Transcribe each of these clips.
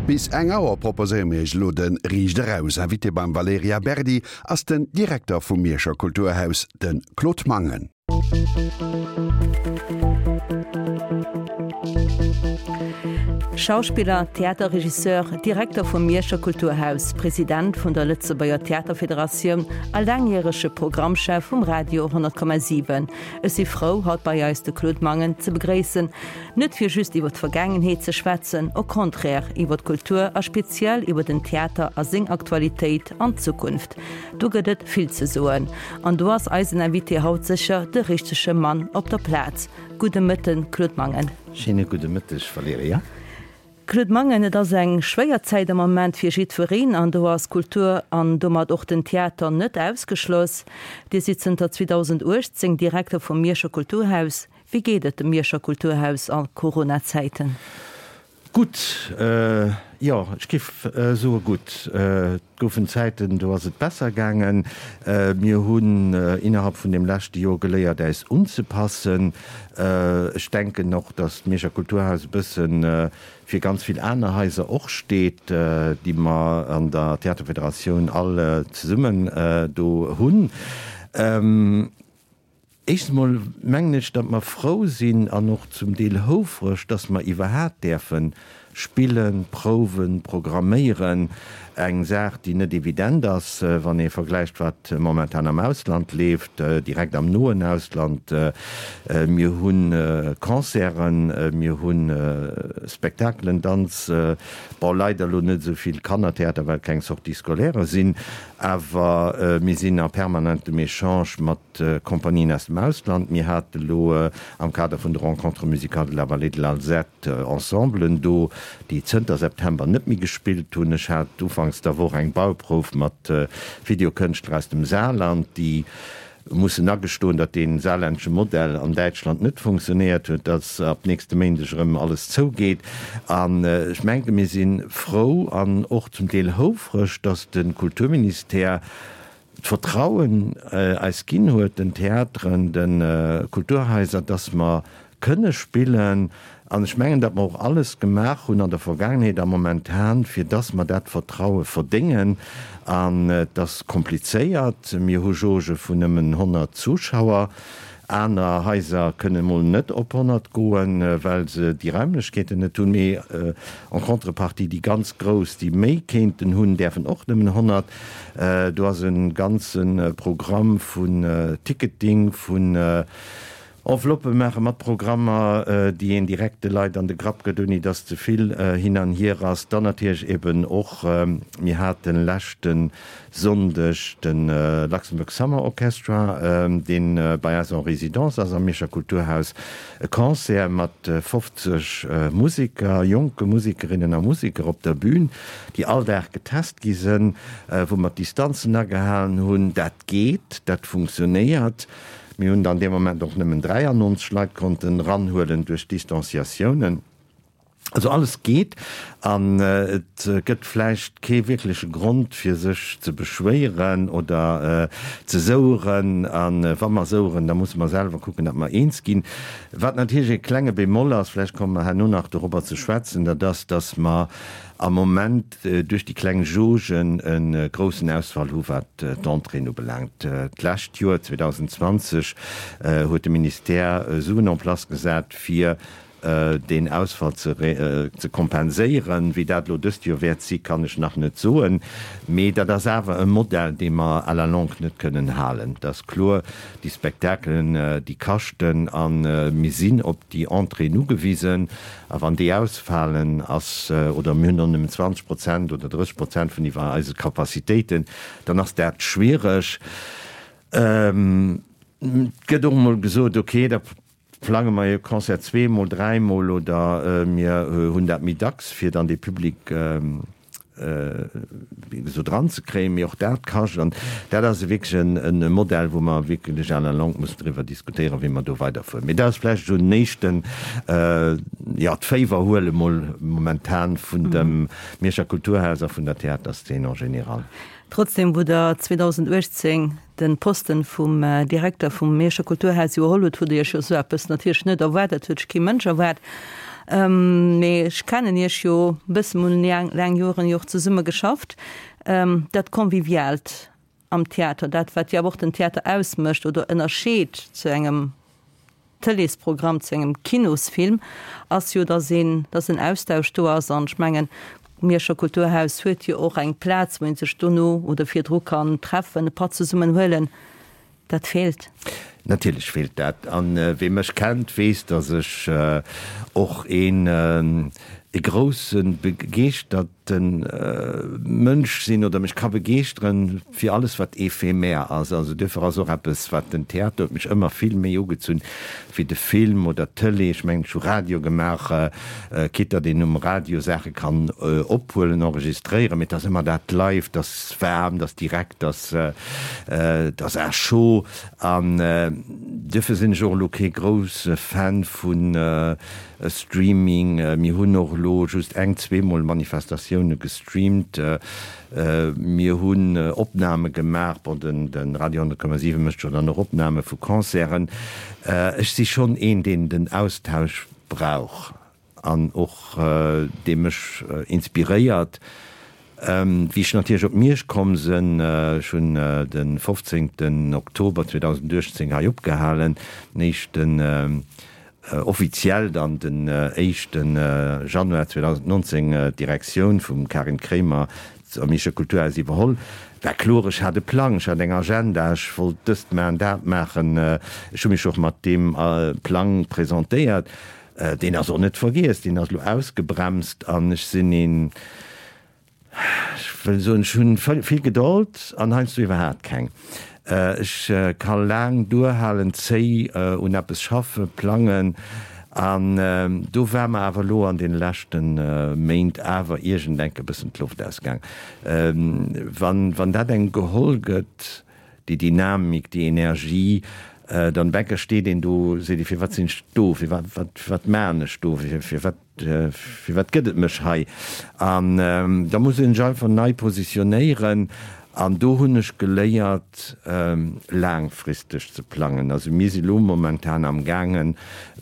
Bis eng Auer proposéiere mir iech elo de Riicht Eraus. Invité beim Valerija Berdi ass den Direkter vum Mierscher Kulturhaus, de Claude Mangen. Schauspiller, Theaterregisseur, Direkter vum Mierscher Kulturhaus, President vun der Lëtzebuerger Theaterfederatioun a laangjärege Programmchef vum Radio 100,7. Ech si frou, haut bei eis de Claude Mangen ze begréissen, net fir just iwwer d'Vergaangenheet ze schwätzen, au contraire, iwwer d'Kultur a speziell iwwer den Theater a seng Aktualitéit an d'Zukunft. Do gëtt et vill ze soen an do ass eisen Invité haut sécher de richtege Mann op der Plaz. Gudde Mëtten, Claude Mangen. Schéine gudde Mëtteg, Valerija. Claude Mangen, Et ass eng schwéier Zäit am Moment fir jiddwereen an do ass d'Kultur an domat och den Theater net ausgeschloss. Dir sidd zënter 2018 Direkter vum Mierscher Kulturhaus. Wéi geet et dem Mierscher Kulturhaus a Corona-Zäiten? Gutt, jo, ech géif soe gutt. Et goufen Zäiten, do ass et besser gaangen. Mir hunn innerhalb vun deem leschte Joer geléiert, äis unzepassen. Ech denken och, datt d'Mierscher Kulturhaus e bësse fir ganz vill aner Haiser och steet, déi mer an der Theaterfederatioun all zesummen do hunn. Éischtens emol mengen ech, datt mer frou sinn an och zum Deel houfreg, datt mer iwwerhaat däerfe spillen, prouwen, programméieren. Eng Saach, déi net evident ass, wann ee vergläicht, wat momentan am Ausland leeft, direkt am noen Ausland. Mir hu Concerten, mir hu Spektakelen, Danz, bon, leider elo net esou vill Kannertheater, well keng Sorties scolaires sinn, awer mir sinn a permanentem Echange mat Kompanien aus dem Ausland. Mir hate lo am Kader vun de Rencontres musicales de la Vallée de l'Alzette Ensemblen do, déi zënter September net méi gespillt hunn. Ech hat ufanks der Woch eng Bauprouf mat Videokënschtler aus dem Saarland, déi mussen agestoen, datt dee saarlännesche Modell an Däitschland net funktionéiert huet, datt ab nächste Méindeg erëm alles zougeet. An ech mengen, mir si frou an och zum Deel houfreg, datt de Kulturministère d'Vertrauen eis ginn huet, den Theateren, de Kulturhaiser, dass mer kënne spillen. An ech mengen, datt mer och alles gemaach hunn an der Vergaangenheet a momentan, fir dass mer dat Vertraue verdéngen. An et ass komplizéiert. Mir hu Jauge vun nëmmen 100 Zuschauer. Aner Haiser kënnen emol net op 100 goen, well se déi Raimlechkeeten net hunn. Mee en contrepartie, déi ganz grouss, déi méi kéinten hunn, däerfen och nëmmen 100. Do ass e ganze Programm vun Ticketing, vun Enveloppë maache mat Programmer, déi een direkt de Leit an de Grapp gëtt, ouni datt ze vill hin an hier ass. Dann natierlech eben och, mir hate leschte Sonndeg de Luxembourg Summer Orchestra, dee bei eis en Résidence ass am Mierscher Kulturhaus, e Concert mat 50 Museker, jonke Musekerinnen a Museker op der Bün. déi all Dag getest gi sënn, wou mer d'Distanzen agehalen hunn. Dat geet, dat funktionéiert. Mir hunn dann dee Moment och nëmmen 93 Leit konnten eranhuelen duerch d'Distanciatiounen. Also alles geet an et gëtt vläicht kee wierkleche Grond fir sech ze beschwéieren oder ze soueren. A wa mer soueren, da musse mer selwer kucken, datt mer eens ginn. Wat natierlech e klenge Bémol ass, vläicht komme mer herno nach dorobber ze schwätzen, dat ass, datt mer am Moment duerch déi kleng Jaugen e groussen Ausfall hu wat d'Entréeën ubelaangt. D'lescht Joer, 2020, huet de Ministère Suen en place gesat, fir deen Ausfall ze kompenséieren. Wéi dat elo dëst Joer wäert si, kann ech nach net soen. Mee dat ass awer e Modell, dee mer à la longue net kënnen halen. Et ass kloer, déi Spektakelen, déi kaschten a mir sinn op déi Entréeën ugewisen. A wann déi ausfalen, ass, oder mir hunn och nëmmen 20 Prozent oder 30 Prozent vun iwwer eise Capacitéiten, dann ass dat schwiereg. Et gëtt och emol gesot, okay, da plange mer e Concert zweemol, dräimol oder mir hunn dat méi dacks, fir dann dee Public wéi gesot dran ze kréien, mee och dat kascht. An dat ass wierklech e Modell, wou mer wierklech à la longue mussen driwwer diskutéieren, wéi mer do weiderfueren. Mee dat ass vläicht esou en éischten, jo, d'Féiwer huele mol momentan vun dem Mierscher Kulturhaus a vun der Theaterszene en général. Trotzdem, wou Der 2018 de Posten vum Direkter vum Mierscher Kulturhaus iwwerholl hutt, hutt Der Iech jo esou eppes natierlech net erwaart. Dat huet sech kee Mënsch erwaart. Mee ech kennen Iech jo e bëssen, mir hunn laang Joren jo och zesumme geschafft. Dat Conviviaalt am Theater, dat wat jo awer och den Theater ausmécht oder ënnerscheet zu engem Tëleesprogramm, zu engem Kinosfilm, ass jo, datt een, datt en Austausch do ass. An ech mengen, d'Mierscher Kulturhaus huet jo och eng Plaz, wou ee sech dono oder virdru kann treffen, e Patt zesummen huelen. Dat feelt. Natierlech feelt dat. An wee mech kennt, weess, datt ech och een e grousse begeeschterte Mënsch sinn oder mech ka begeeschteren fir alles wat éphémère ass. Also duerfir ass och eppes wat den Theater huet mech ëmmer vill méi ugezunn wéi de Film oder d'Tëlee. Ech mengen, ech hu Radio gemaach, quitte datt een um Radio Saache kann ophuelen, enregistréieren, mee et ass ëmmer dat live, et ass waarm, et ass direkt, et ass Et ass à chaud an duerfir sinn ech och elo kee grousse Fan vu Streaming. Mir hunn och elo just eng, zweemol Manifestatioune gestreamt. Mir hunn Opname gemaach, bon, de Radio 100,7 mécht jo dann och Opname vu Concerten. Ech si schonn een, deen den Austausch brauch. An och dee mech inspiréiert. Wéi ech natierlech op Miersch komm sënn, ech hunn de 15 Oktober 2018 hei opgehalen, den éischten, offiziell dann den éischte Januar 2019 d'Direktioun vum Karin Kremer am Mierscher Kulturhaus iwwerholl, war kloer, ech hat e Plang, ech hat eng Agenda, ech wollt dëst maachen, dat maachen. Ech hu mech och mat deem Plang presentéiert. Deen ass och net vergiess, deen ass elo ausgebremst an ech sinn een, ech wëll soen, ech hunn vill Gedold an heiansdo iwwerhaapt keng. Ech ka laang duerhalen, zéi un eppes schaffen, plangen an do war mer awer elo an deene leschte Méint awer iergendenk e bëssen d'Loft ausgaang. Wann dat engem geholl gëtt, déi Dynamik, déi Energie, dann Bäcker steet een do, seet ee, firwat sinn ech do, firwat, wat, wat maachen ech do, firwat, firwat gëtt et mech hei? An da muss een sech einfach nei positionéieren an do hunn ech geléiert, laangfristeg ze plangen. Also mir si lo momentan am gaangen,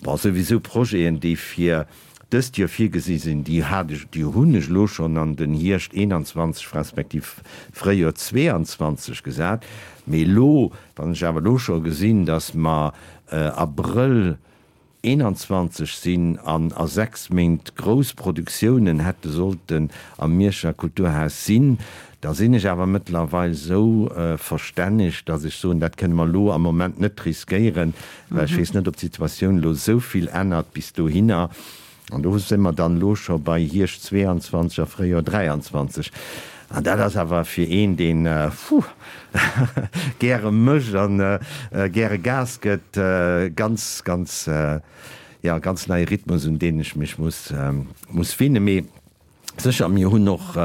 bon, souwisou Projeten, déi fir dëst Joer virgesi sinn, déi hat ech, déi hunn ech elo schonn an den Hierscht 21 respektiv Fréijoer 22 gesat. Mee elo, wann ech awer elo scho gesinn, datt mer Abrëll 21 sinn an a 6 Méint grouss Produktiounen hätte sollten am Mierscher Kulturhaus sinn, da sinn ech awer mëttlerweil esou verstänneg, datt ech soen, dat kënne mer elo am Moment net riskéieren, Well ech weess net, ob d'Situatioun elo esou vill ännert bis dohinner. An do si mer dann elo scho bei Hierscht 22 a Fréijoer 23. An dat ass awer fir een, deen, puh, gäre mécht a gäre Gas gëtt, ganz, ganz, jo, ganz neie Rhythmus, un deen ech mech muss, muss winnen. Mee Sécher, mir hunn och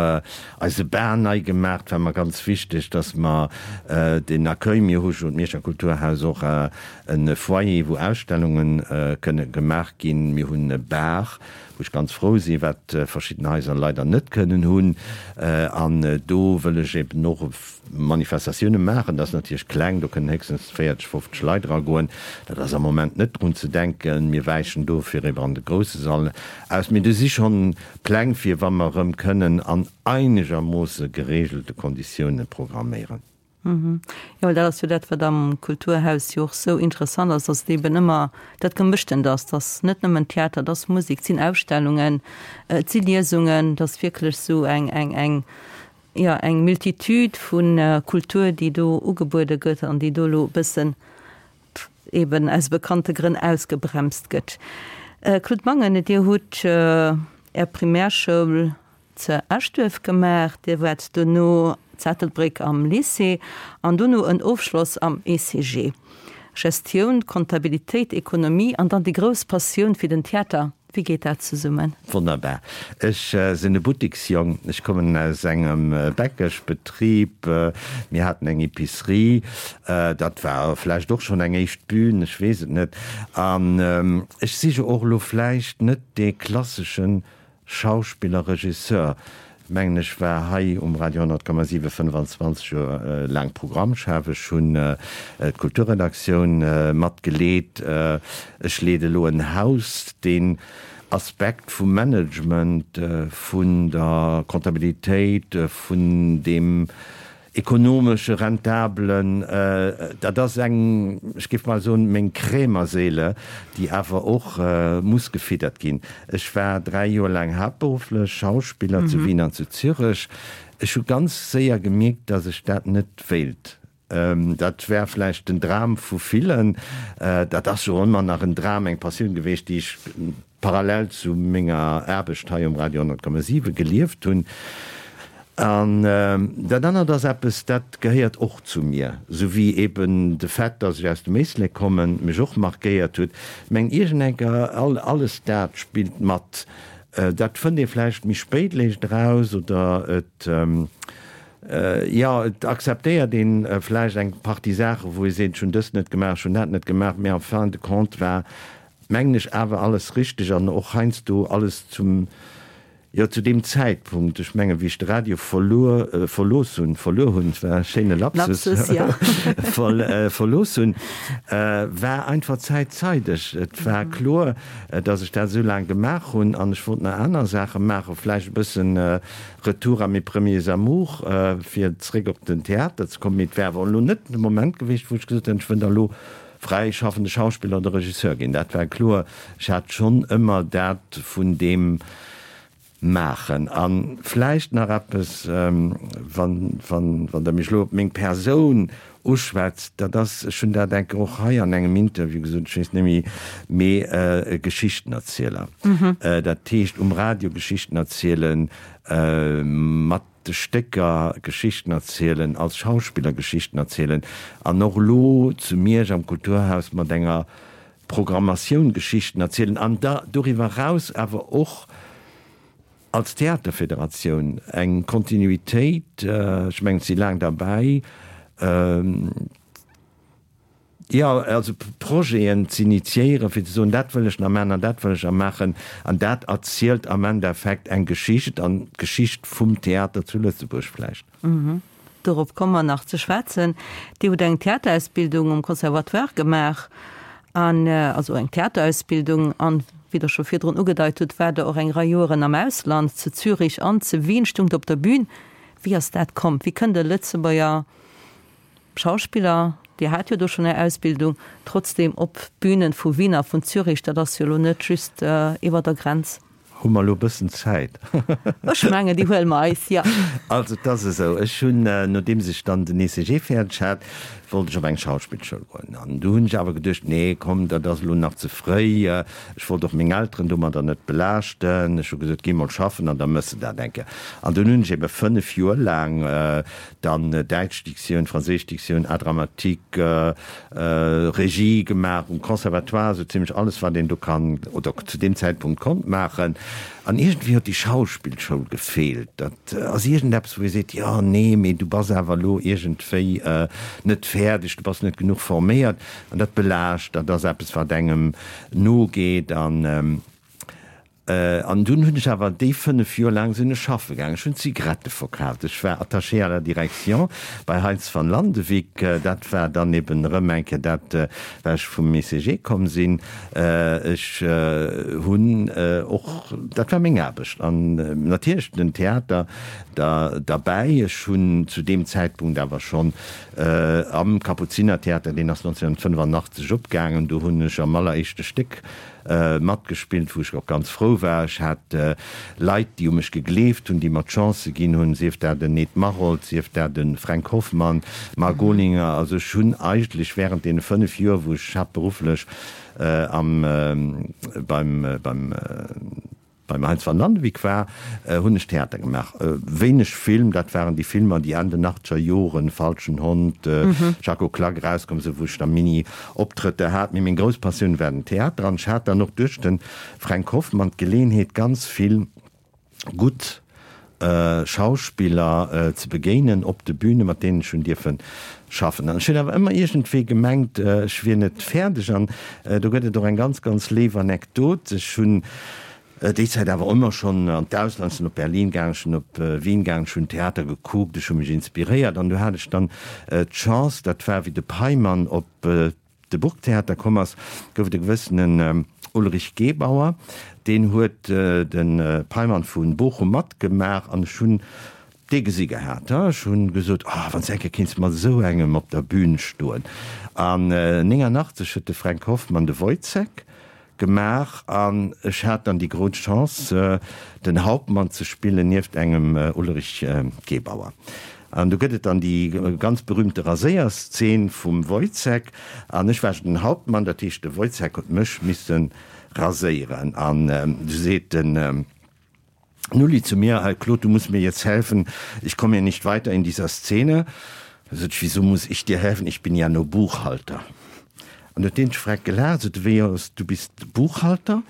eise Bar nei gemaach. Et war mer ganz wichteg, dass mer den Accueil, mir hu jo d'Mierscher Kulturhaus och e Foyer, wou Ausstellunge kënne gemaach ginn. Mir hunn e Bar, wou ech ganz frou sinn, wat verschidden Haiser leider net kënnen hunn. An do wëll ech eben och Manifestatioune maachen. Dat ass natierlech kleng, do kënnen héchstens 40, 50 Leit eragoen. Dat ass am Moment net drun ze denken. Mir wäichen dofir ewer an de grousse Sall aus. Mee do si schonn Pläng fir wa mer erëm kënnen an einegermoosse geregelte Konditioune programméieren. Jo, well dat ass jo dat, wat am Kulturhaus jo och sou interessant ass, dass et eben ëmmer dat Gemëschtent ass, dass net nëmmen Theater, dass Musek, et sinn Ausstellungen, et si Liesungen, dass wierklech sou eng, eng, eng, jo, eng Multitude vu Kultur, déi do ugebuede gëtt an déi do elo e bëssen eben aus bekannte Grënn ausgebremst gëtt. Claude Mangen, Dir hutt Är Primärschoul ze Eschduerf gemaach, Dir waart dono zu Ettelbréck am Lycée an dono en Ofschloss am ECG. Gestioun, Comptabilitéit, Ekonomie an dann déi grouss Passioun fir den Theater. Wéi geet dat zesummen? Wonnerbar. Ech sinn e Buttiksjong. Ech kommen aus engem Bäckeschbetrib. Mir haten eng Epicerie. Dat war vläicht och schonn eng éischt Bühn, ech weess et net. An ech si jo och elo vläicht net dee klasseschen Schauspiller, Regisseur, mengen ech, war hei um Radio 100,7 25 Joer laang Programmchef. Ech hunn d'Kulturredaktioun mat geleet. Ech leede elo en Haus, deen. Aspekt vum Management, vun der Comptabilitéit, vun deem ekonomesche, rentabelen, dat ass eng, ech géif mol soen, meng Krämerseele, déi awer och muss gefiddert ginn. Ech war 3 Joer laang haaptberufflech Schauspiller zu Wien an zu Zürech. Ech hu ganz séier gemierkt, datt ech dat net wéilt. Dat war vläicht den Dram vu villen. Dat ass jo ëmmer nach en Dram, eng Passioun geweecht, déi ech parallel zu menger Aarbecht hei um Radio 100,7 gelieft hunn. An dat anert ass eppes, dat gehéiert och zu mir, sou wéi eben de Fait, datt ech aus dem Éislek kommen, mech och markéiert huet. Meng iergendenker, alles dat spillt mat. Dat fënnt ee vläicht méi spéit léischt eraus oder et, jo, et akzeptéiert een vläicht eng Partie Saachen, wou ee seet, ech hunn dëst net gemaach, ech hunn dat net gemaach, mee en fin de compte war, mengen ech, awer alles richteg an och heiansdo alles zum, jo, zu deem Zäitpunkt. Ech mengen, wéi ech de Radio verluer, verlooss hunn, verluer hunn, et war e schéine Lapsus, Lapsus, jo. verlooss hunn, war einfach d'Zäit zeideg. Et war kloer, dass ech dat esou laang gemaach hunn an ech wollt nach aner Saache maachen, vläicht e bëssen Retour à mes premiers amours, fir zréck op den Theater ze kommen. Mee et wär awer elo net de Moment gewiescht, wou ech gesot hätt, ech wëll da elo fräischaffende Schauspiller oder Regisseur ginn. Dat war kloer. Ech hat schonn ëmmer dat vun deem Maachen. A vläicht nach eppes, wann, wann, wann Der mech elo op meng Persoun uschwätzt, dat ass, ech hunn dat enke och hei an engem Interview gesot, ech weess net méi, mee e Geschichtenerzieler. Dat heescht um Radio Geschichten erzielen, mat de Stécker Geschichten erzielen, als Schauspiller Geschichten erzielen an och elo zu Miersch am Kulturhaus mat enger Programmatioun Geschichten erzielen an da doriwwer eraus awer och als Theaterfederatioun eng Kontinuitéit, ech mengen, ech si laang derbäi, jo, also Projeten z'initiéieren, fir ze soen, dat wëll ech nach maachen an dat wëll ech nach maachen. An dat erzielt am Endeffekt eng Geschicht an d'Geschicht vum Theater zu Lëtzebuerg vläicht. Dorop komme mer nach ze schwätzen. Dir hutt eng Theaterausbildung um Conservatoire gemaach, an also eng Theaterausbildung, an wéi Der scho virdrun ugedeit hutt, waart Der och eng Rei Joeren am Ausland, zu Zürich an zu Wien, stungt op der Bühn. Wéi ass dat komm? Wéi kënnt e Lëtzebuerger Schauspiller, Dir hat jo do schonn Är Ausbildung, trotzdem op d'Bühnen vu Wien a vun Zürich? Dat ass jo elo net just iwwer der Grenz. Hu mer elo e bëssen Zäit? Ech mengen, déi huele mer eis, jo. Also, et ass esou, ech hunn, nodeems ech dann den ECG fäerdeg hat, wollt ech op eng Schauspillschoul goen. An du hunn ech awer geduecht, nee, komm, dat ass elo nach ze fréi. Ech wollt och meng Elteren domadder net belaaschten. Ech hu gesot, géi mol schaffen an da mëss de dat eng Kéier. An dunn hunn ech ebe 5 Joer laang Dann däitsch Diktioun, franséisch Diktioun, Art dramatique, Regie gemaach um Conservatoire, esou zimlech alles wat een do kann oder zu deem Zäitpunkt konnt maachen. An iergendwéi huet déi Schauspillschoul gefeelt. Dat ass iergendeppes wou ee seet, jo nee, mee du bass awer elo iergendwéi net fäerdeg, du bass net genuch forméiert. An dat belaascht, dat ass eppes wat engem nogeet an. An dunn hunn ech awer déi 5 Joer laang sinn ech schaffe gaangen. Ech hunn Zigarette verkaaft. Ech war Attaché à la direction bei Heintz van Landewyck. Dat war dann eben erëm eng Kéier dat, well ech vum ECG komm sinn. Ech hunn och, dat war meng Aarbecht an natierlech den Theater da derbäi. Ech hunn zu deem Zäitpunkt awer schonn am Kapuzinertheater, deen ass 1985 opgaangen, do hunn ech am alleréischte Stéck Matgespillt, wou ech och ganz frou war. Ech hat Leit, déi u mech gegleeft hunn, déi mer d'Chance ginn hunn, sief dat en Ed Maroldt, sief dat e Fränk Hoffmann, Marc Olinger. Also ech hunn eigentlech während deene 5 Joer, wou ech haaptberufflech am, beim, beim, Beim Heinz van Landewyck war, hunn ech Theater gemaach. Wéineg Film, dat waren déi Filmer, déi Enn den achtzeger Joren, Falschen Hond, Jaco Klak, erauskomm sinn, wou ech da Mini-Optrëtter hat. Mee meng grouss Passioun war den Theater an ech hat dann och duerch de Fränk Hoffmann d'Geleenheet, ganz vill gutt Schauspiller ze begéinen op de Büne, mat deenen ech hunn dierfe schaffen. An ech hunn awer ëmmer iergendwéi gemengt, ech wier net fäerdeg. An do gëtt et och eng ganz, ganz léif Anekdot. Ech hunn déi Zäit awer ëmmer schonn an d'Ausland, ech sinn op Berlin gaangen, ech sinn op Wien gaangen, ech hunn Theater gekuckt, ech hu mech inspiréiert. An du hat ech dann d'Chance, dat war wéi de Peimann op de Burgtheater komm ass, gouf et e gewëssene. Ulrich Gebauer, deen huet de Peimann vu Bochum matgemaach an ech hunn dee gesi gehat. Ech hunn gesot, oh, wann s de eng Kéier kéints mat esou engem op der Bühn stoen. An 89 huet de Fränk Hoffmann de Woyzeck gemaach an ech hat dann déi grouss Chance, den Hauptmann ze spillen nieft engem Ulrich Gebauer. An do gëtt et dann déi ganz berühmte Raséierszeen vum Woyzeck an ech war den Hauptmann, dat heescht de Woyzeck huet mech misse raséieren an du seet den Nulli zu mir, Herr Claude, du musst mir jetzt helfen, ich komme hier nicht weiter in dieser Szene. Da sot ech, Wieso muss ich dir helfen, ich bin ja nur Buchhalter. An huet deen Schreck gelaacht, sot e, Wéi, du bist Buchhalter?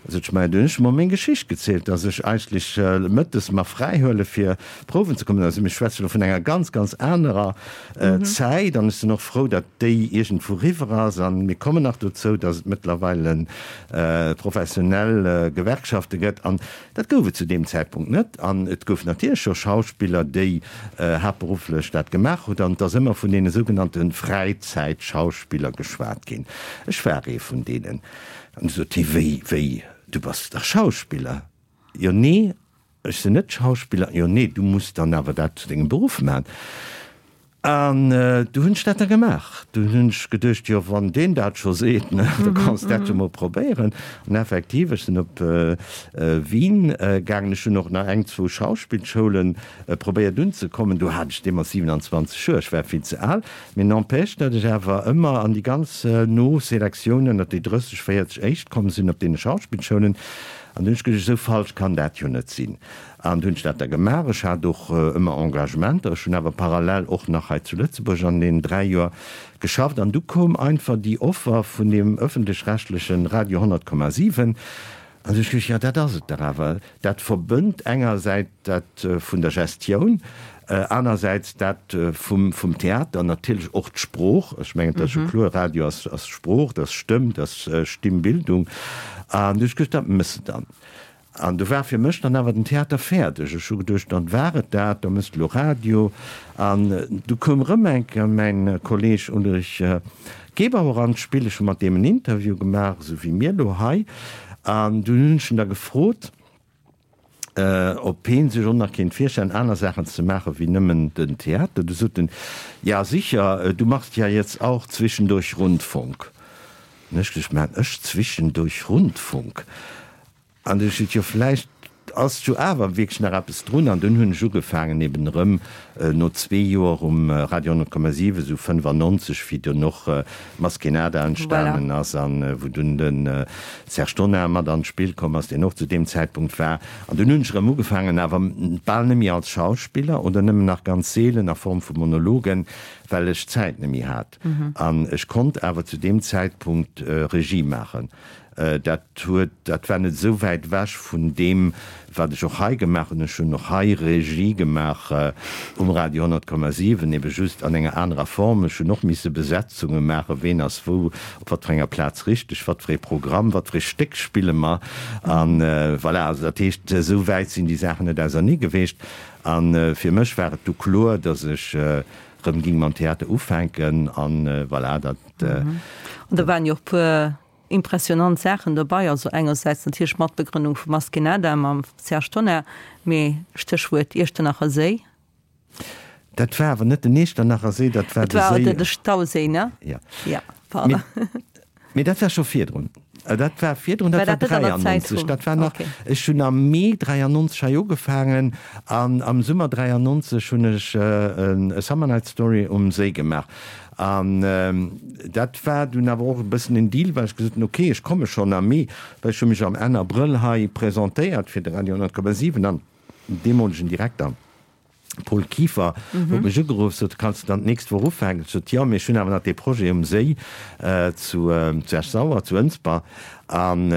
Sot ech, Maja, du hunn ech mer meng Geschicht gezielt, dass ech eigentlech mëttes mer fräi huele fir prouwen ze kommen. Also mir schwätzen elo vun enger ganz, ganz anerer Zäit an ech sinn och frou, datt déi iergendwou riwwer ass. A mir kommen nach dozou, datt et mëttlerweile professionell Gewerkschafte gëtt. An dat gouf et zu deem Zäitpunkt net. An et gouf natierlech scho Schauspiller, déi haaptberufflech dat gemaach hunn. An et ass ëmmer vun deene sougenannte Fräizäitschauspiller geschwat ginn. Ech war ee vun deenen. An du sot hie, Wéi, wéi, du bass dach Schauspiller? Jo, nee, ech sinn net Schauspiller. Jo, nee, du muss dann awer dat zu dengem Beruff maachen. An du hunn ech dat da gemaach. Dunn hunn ech geduecht, jo, wann deen dat scho seet, ne, da kanns dat jo mol probéieren. An effektiv, ech sinn op Wien gaangen. Ech hunn och nach eng, zwou Schauspillschoule probéiert unzekommen. Do hat ech deemools 27 Joer, ech war vill ze al. Mee n'empêche, datt ech awer ëmmer an déi ganz no Selektiounen, ënnert déi 30, 40 éischt komm sinn op deene Schauspillschoulen. An dunn hunn ech geduecht, esou falsch kann dat jo net sinn. An du hunn ech dat da gemaach. Ech hat och ëmmer Engagementer. Ech hunn awer parallel och nach hei zu Lëtzebuerg an deenen 3 Joer geschafft. An du koum einfach déi Offer vun deem ëffentlech-rechtlechen Radio 100,7. An du hunn ech geduecht, jo dat ass et dach awer. Dat verbënnt engersäits dat vun der Gestioun, anersäits dat vum vum Theater, natierlech och d'Sprooch. Ech mengen, dat ass jo kloer, Radio ass ass Sprooch, dat ass Stëmm, dat ass Stimmbildung. An du hunn ech geduecht, dat mëss de dann. An du war fir mech dann awer den Theater fäerdeg. Ech hu geduecht, dann war et dat, da mëss de elo Radio. An du koum erëm eng Kéier mäin Kolleeg Ulrich Gebauer an d'Spill. Ech hu mat deem en Interview gemaach, esou wéi mir elo hei. An dunn hunn ech en da gefrot, ob heen sech och nach kéint virstellen, aner Saachen ze maachen, wéi nëmmen den Theater. Du sot en, Ja sicher, du machst ja jetzt auch zwischendurch Rundfunk. An ech gesot, Maan ech zwischendurch Rundfunk? An du ech gesot, jo vläicht ass jo awer wierklech nach eppes drun. An dunn hunn ech ugefaangen eben erëm no zwee Joer um Radio 100,7, esou 95, wéi dunn och Maskénada entstanen ass an wou dunn de Serge Tonnar mat an d'Spill komm ass, deen och zu deem Zäitpunkt war. An dunn hunn ech erëm ugefaangen, awer bal net méi als Schauspiller oder nëmmen nach ganz seelen a Form vu Monologen, well ech d'Zäit net méi hat. An ech konnt awer zu deem Zäitpunkt Regie maachen. Dat huet, dat war net esou wäit ewech vun deem, wat ech och hei gemaach hunn. Ech hunn och hei Regie gemaach um Radio 100,7, ebe just an enger anerer Form. Ech hunn och misse Besetzunge maachen, ween ass wou, op wat fir enger Plaz richteg, wat fir ee Programm, wat fir ee Stéck spille mer. A voilà, also dat heescht, esou wäit sinn déi Saachen net ausernee geweecht. A fir mech war et du kloer, datt ech rëm ging mam Theater ufänken. An voilà, dat. An do waren jo och puer impressionant Saachen dobei, also engersäits natierlech Matbegrënnung vu Maskénada mam Serge Tonnar, mee Stéchwuert Iechternacher Séi. Dat war awer net den Iechternacher Séi, dat war de Séi. Et war de Stauséi, ne? Jo. Ja, pardon. Mee dat war scho virdrun. Dat war virdrun, dat war 93. Dat war nach, ech hunn am Mee 93 hei ugefaangen an am Summer 93 hunn ech e Summer Night Story um Séi gemaach. An dat war dunn awer och e bëssen en Deal, well ech gesot hunn, okay, ech komme schonn am Mee, well ech hu mech am Enn Abrëll hei presentéiert fir de Radio 100,7 an den deemolegen Direkter Paul Kieffer huet mech ugeruff, sot, kanns de dann d'nächst Woch ufänken? Ech sot, jo, mee ech hunn awer nach dee Projet um Séi zu Esch-Sauer, zu Ënsber. An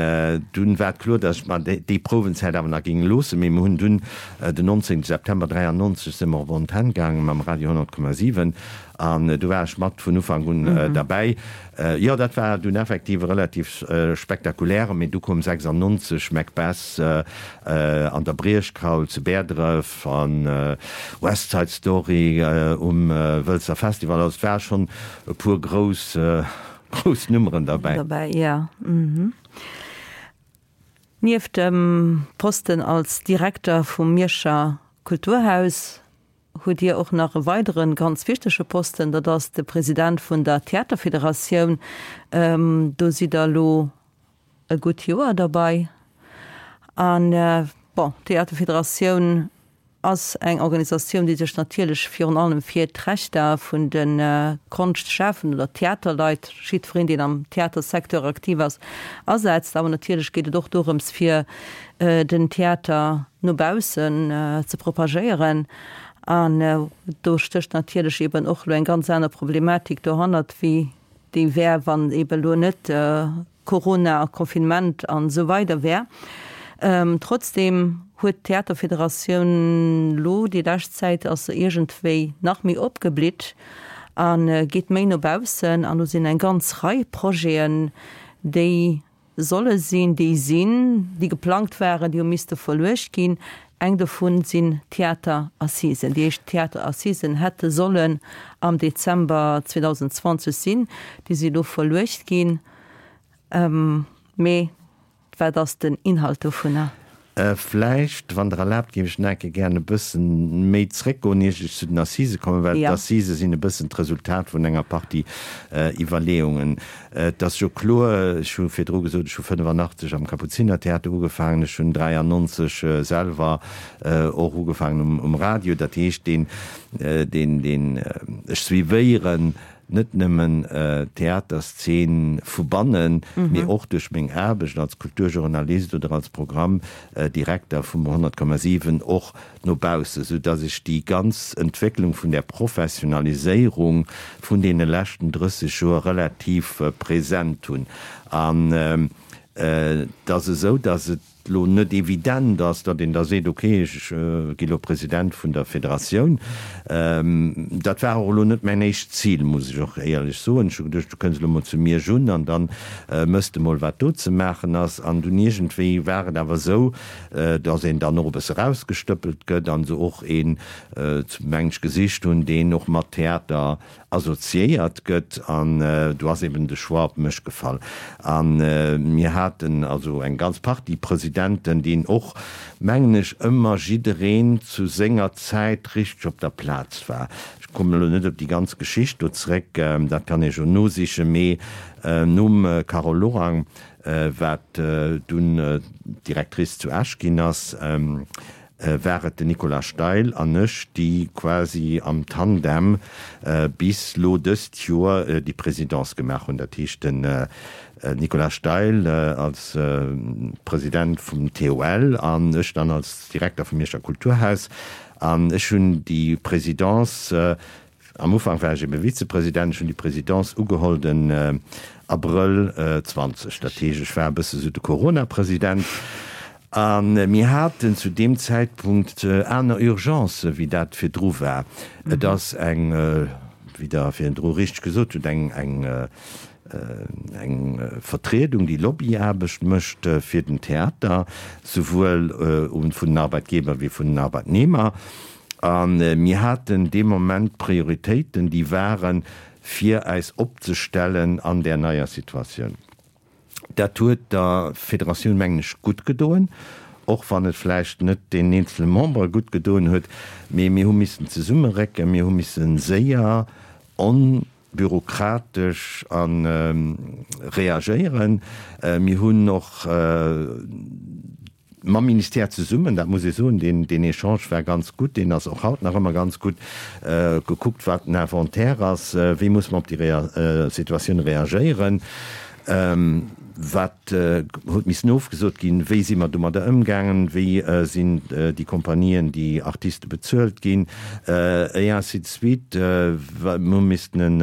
dunn war et kloer, datt ech mer déi Prouwenzäit awer nach géing loossen. Mee mir hunn dunn den 19 September 93 si mer op Antenn gaange mam Radio 100,7 an do war ech mat vun Ufank un derbäi. Jo, dat war dunn effektiv e relativ spektakuläre, mee du koum 96 Macbeth an der Briechkaul zu Bäerdref an West Side Story um Wëlzer Festival. Also et war schonn e puer grouss, grouss Nummeren derbäi. Derbäi, jo. Mhm. Nieft dem Posten als Direkter vum Mierscher Kulturhaus hutt Dir och nach e weidere ganz wichtege Posten, dat ass de President vun der Theaterfederatioun. Do sidd Der elo e gutt Joer derbei. An, bon, d'Theaterfederatioun ass eng Organisatioun, déi sech natierlech virun allem fir d'Rechter vun de Konschtschafenden oder Theaterleit, jiddwereen, deen am Theatersecteur aktiv ass, asetzt. Awer natierlech geet et och dorëms, fir den Theater no baussen ze propagéieren. An do stécht natierlech eeben och elo eng ganz aner Problematik dohannert, wéi déi wär, wann eeben elo net Corona a Confinement an esou weider wär. Trotzdem huet d'Theaterfederatioun lo déi lescht Zäit ass se iergendwéi nach méi opgeblitt a geet méi no baussen an do sinn eng ganz Rei Projeten, déi solle sinn, déi sinn, déi geplangt waren, déi hu misste verluecht ginn. Eng dovun sinn d'Theaterassisen. Déi éischt Theaterassisen hätte sollen am Dezember 2020 sinn, déi si lo verluecht ginn. Mee wat ass den Inhalt dovunner? Vläicht, wann Der erlaabt, géif ech nach eng Kéier gären e bësse méi zréckgoen, ier ech zu den Assisë kommen, well d'Assisë sinn e bëssen d'Resultat vun enger Partie Iwwerleeungen. Et ass jo kloer, ech hu virdru gesot, ech hu 85 am Kapuzinertheater ugefaangen, ech hunn 93 selwer och ugefaangen um Radio. Dat heescht, deen, deen, deen, ech suivéieren net nëmmen d'Theaterszeen vu bannen, mee och duerch meng Aarbecht als Kulturjournalist oder als Programmdirekter vum 100,7 och no baussen, sou dass ech déi ganz Entwécklung vun där Professionaliséierung vun deene leschten 30 Joer relativ present hunn. An et ass esou, dass et lo net evident ass, datt een da seet, ok, ech gi lo President vun der Federatioun. Dat war och elo net mäin éischt Zil, muss ech och éierlech soen. Ech hu geduecht, du kënns elo mol zu Miersch un an da mëss de mol, wat do ze maachen ass. An dunn iergendwéi war et awer esou, datt een dann och e bësse rausgestëppelt gëtt an se och een, mengen ech, gesicht hunn, deen och mat Theater assoziéiert gëtt an do ass eben de Choix op mech gefall. A mir haten also eng ganz Partie Presidenten, deen och, mengen ech, ëmmer jiddereen zu senger Zäit richteg op der Plaz war. Ech kommen elo net op déi ganz Geschicht do zréck, dat kann ee jo nosichen, mee nom Carole Lorang, wat dunn Directrice zu Esch ginn ass, war et den Nicolas Steil an ech, déi quasi am Tandem bis lo dëst Joer déi Présidence gemaach hunn. Dat heescht den Nicolas Steil als President vum TOL an ech dann als Direkter vum Mierscher Kulturhaus. An ech hunn déi Présidence Am Ufank war ech ebe Vizepresident. Ech hunn déi Présidence ugeholl den Abrëll 20. Dat heescht, ech war e bësse sou de Corona-President. A mir haten zu deem Zäitpunkt aner Urgencë wéi dat virdru war. Et ass eng, wéi Der virdru richteg gesot hutt, eng, eng, eng Vertriedung, déi Lobbyaarbecht mécht fir den Theater, souwuel vun den Arbeitgeber wéi vun den Arbeitnehmer. A mir haten dee Moment Prioritéiten, déi waren, fir äis opzestellen an där neier Situatioun. Dat huet der Federatioun, mengen ech, gutt gedoen, och wann et vläicht net deenen eenzele Membere gutt gedoen huet. Mee mir hu missen zesummerécken, mir hu misse séier, onbürokratesch a reagéieren. Mir hunn och Mam Ministère zesummen, dat muss ee soen, deen, deen Echange war ganz gutt, deen ass och haut nach ëmmer ganz gutt, gekuckt, wat den Inventaire ass, wéi muss mer op déi Situatioun reagéieren, wat huet missen ofgesot ginn, wéi si mer domadder ëmgaangen, wéi sinn déi Compagnien, déi Artiste bezuelt ginn, et ainsi de suite. Mir hu missten en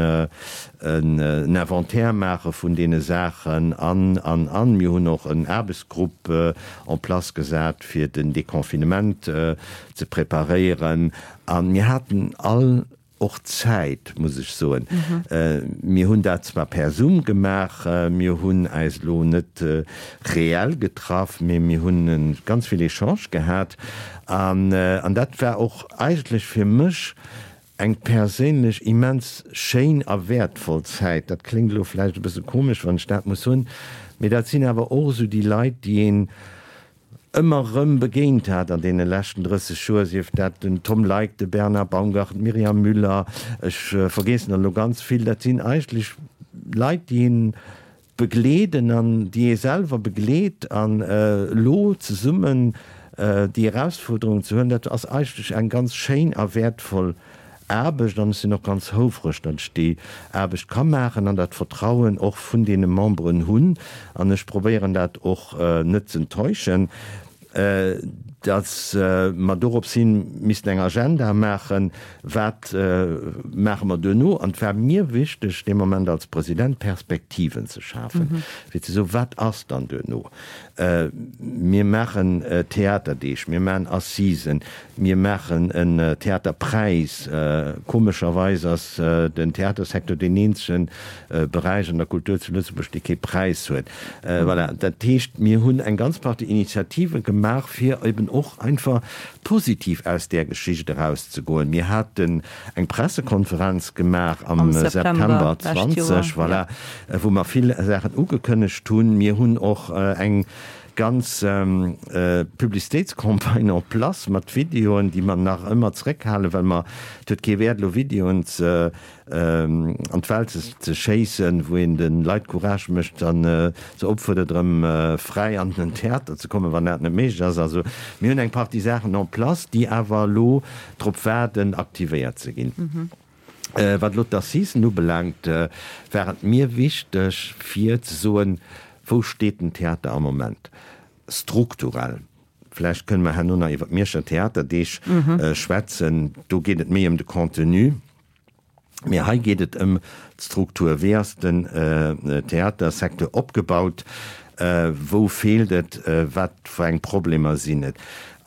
en Inventaire maache vun deene Saachen an, an, an. Mir hunn och en Aarbechtsgrupp en place gesat, fir den Deconfinement ze preparéieren. A mir haten all och Zäit, muss ech soen. Mir hunn dat zwar per Zoom gemaach, mir hunn äis elo net reell getraff, mee mir hunn ganz vill Echangë gehat. An dat war och eigentlech fir mech Eng perséinlech immens schéin a wäertvoll Zäit. Dat kléngt elo vläicht e bësse komesch, wann ech dat muss soen, mee dat sinn awer och esou déi Leit, déi een. Ëmmer erëm begéint hat an deene leschten 30 Joer, sief dat den Tom Leick, de Bernard Baumgarten, d'Myriam Müller, ech vergeessen der elo ganz vill, dat sinn eigentlech Leit, déi een begleeden an déi ee selwer begleet an elo zesummen déi Erausfuerderung ze huelen, dat ass eigentlech eng ganz schéin a wäertvoll Aarbecht an ech sinn och ganz houfreg, datt ech déi Aarbecht ka maachen an dat Vertrauen och vun deene Memberen hunn an ech probéieren dat och net z'enttäuschen, datt mer dorops hin missten eng Agenda maachen, wat maache mer duerno. An et war mir wichteg dee Moment als President Perspektiven ze schafen, fir ze soen, wat ass dann duerno. Mir maachen Theaterdeeg, mir maachen Assisen, mir maachen en Theaterpräis. Komescherweis ass den Theatersecteur deen eenzege Beräich an der Kultur zu Lëtzebuerg, dee kee Präis huet. Voilà, dat heescht, mir hunn eng ganz Partie Initiative gemaach, fir eben och einfach positiv aus där Geschicht erauszegoen. Mir haten eng Pressekonferenz gemaach am September 20, voilà, wou mer vill Saachen ugekënnegt hunn. Mir hunn och eng ganz Publicitéitscampagne en place mat Videoen, déi mer nach ëmmer zréckhalen, well mer, et huet kee Wäert elo Videoen ze an d'Welt ze schéissen, wou een de Leit Courage mécht a se opfuerdert erëm fräi an den Theater ze kommen, wann dat net méiglech ass. Also mir hunn eng Partie Saachen en place, déi awer elo drop waarden, aktivéiert ze ginn. Wat elo d'Assisen ubelaangt, war et mir wichteg fir ze soen, Wou steet den Theater am Moment strukturell? Vläicht kënne mer herno nach iwwer d'Mierscher Theaterdeeg schwätzen. Do geet et méi ëm de Contenu. Mee hei geet et ëm d'Struktur. Wéi ass den Theatersecteur opgebaut? Wou feelt et? Wat fir eng Problemer sinn et?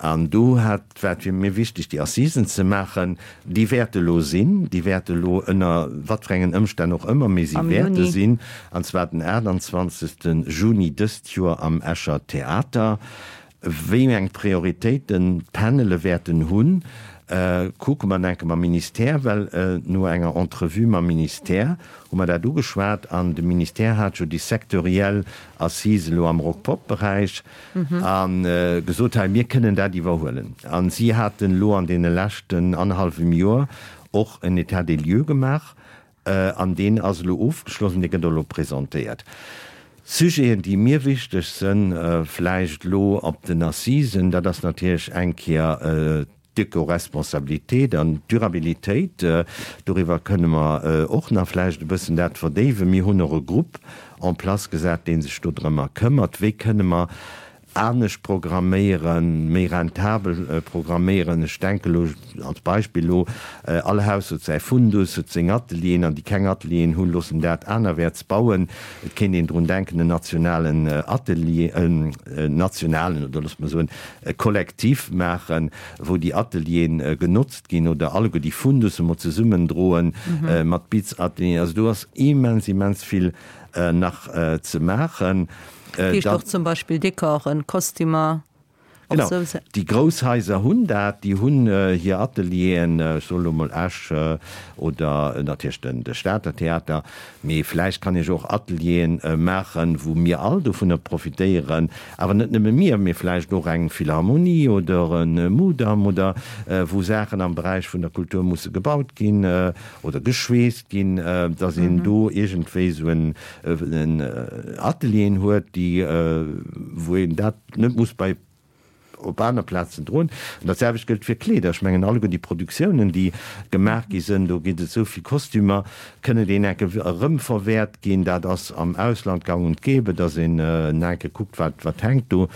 An do hat, war et fir mir wichteg, déi Assisen ze maachen. Déi wäerte elo sinn. Déi wäerte elo ënner wat fir engen Ëmstänn och ëmmer, mee si wäerte sinn, an zwar den 28. Juni dëst Joer am Escher Theater. Wéi eng Prioritéiten d'Panele wäerten hunn, kucke mer enke mam Ministère, well no enger Entrevue mam Ministère hu mer dat ugeschwat an de Ministère hat jo déi sectoriell Assise elo am Rock-Pop-Beräich a gesot, hei mir kënnen dat iwwerhuelen. A si haten elo an deene leschten annerhallwem Joer och en État des lieux gemaach An deen ass elo ofgeschloss an dee gëtt och elo presentéiert. Sujeten, déi mir wichteg sënn, vläicht elo op den Assisen, dat ass natierlech eng Kéier d'Ecoresponsabilité an d'Durabilitéit. Doriwwer kënne mer och nach vläicht e bëssen dat verdéiwen. Mir hunn och e Grupp en place gesat, dee sech dodrëmmer këmmert, wéi kënne mer anescht programméieren, méi rentabel programméieren. Ech denke elo als Beispill elo, all Haus huet säi Fundus, huet seng Atelieren, an déi keng Atelieren hunn, loossen dat anerwäerts bauen. Et kéint een drun denken, en nationalen Atelier, en nationalen, oder loosse mer soen, e Kollektiv maachen, wou déi Atelieren genotzt ginn, oder alleguer déi Fundusse mol zesummendroen mat Bitzatelieren. Also do ass immens, immens vill nach ze maachen. Dat heescht och zum Beispill Dekoren, Kostümer, och Genau, sou. Déi grouss Haiser hunn dat, déi hunn hir Atelieren, ech soen elo mol Esch oder natierlech den de Stater Theater, mee vläicht kann ech och Atelieren maachen, wou mir all dovunner profitéieren, awer net nëmme mir, mee vläicht och eng Philharmonie oder e Mudam oder wou Saachen am Beräich vun der Kultur musse gebaut ginn oder geschweesst ginn, dass een do iergendwéi esou en Atelieren huet, déi, wou een dat net muss bei op aner Plazen droen. An dat selwecht gëllt fir Kleeder. Ech mengen, alleguer déi Produktiounen, déi gemaach gi sënn, do ginn et esou vill Kostümer, kënnen déi enke erëmverwäert ginn. Dat ass am Ausland gang und gäbe, dass een enke kuckt, wat, wat hänkt do.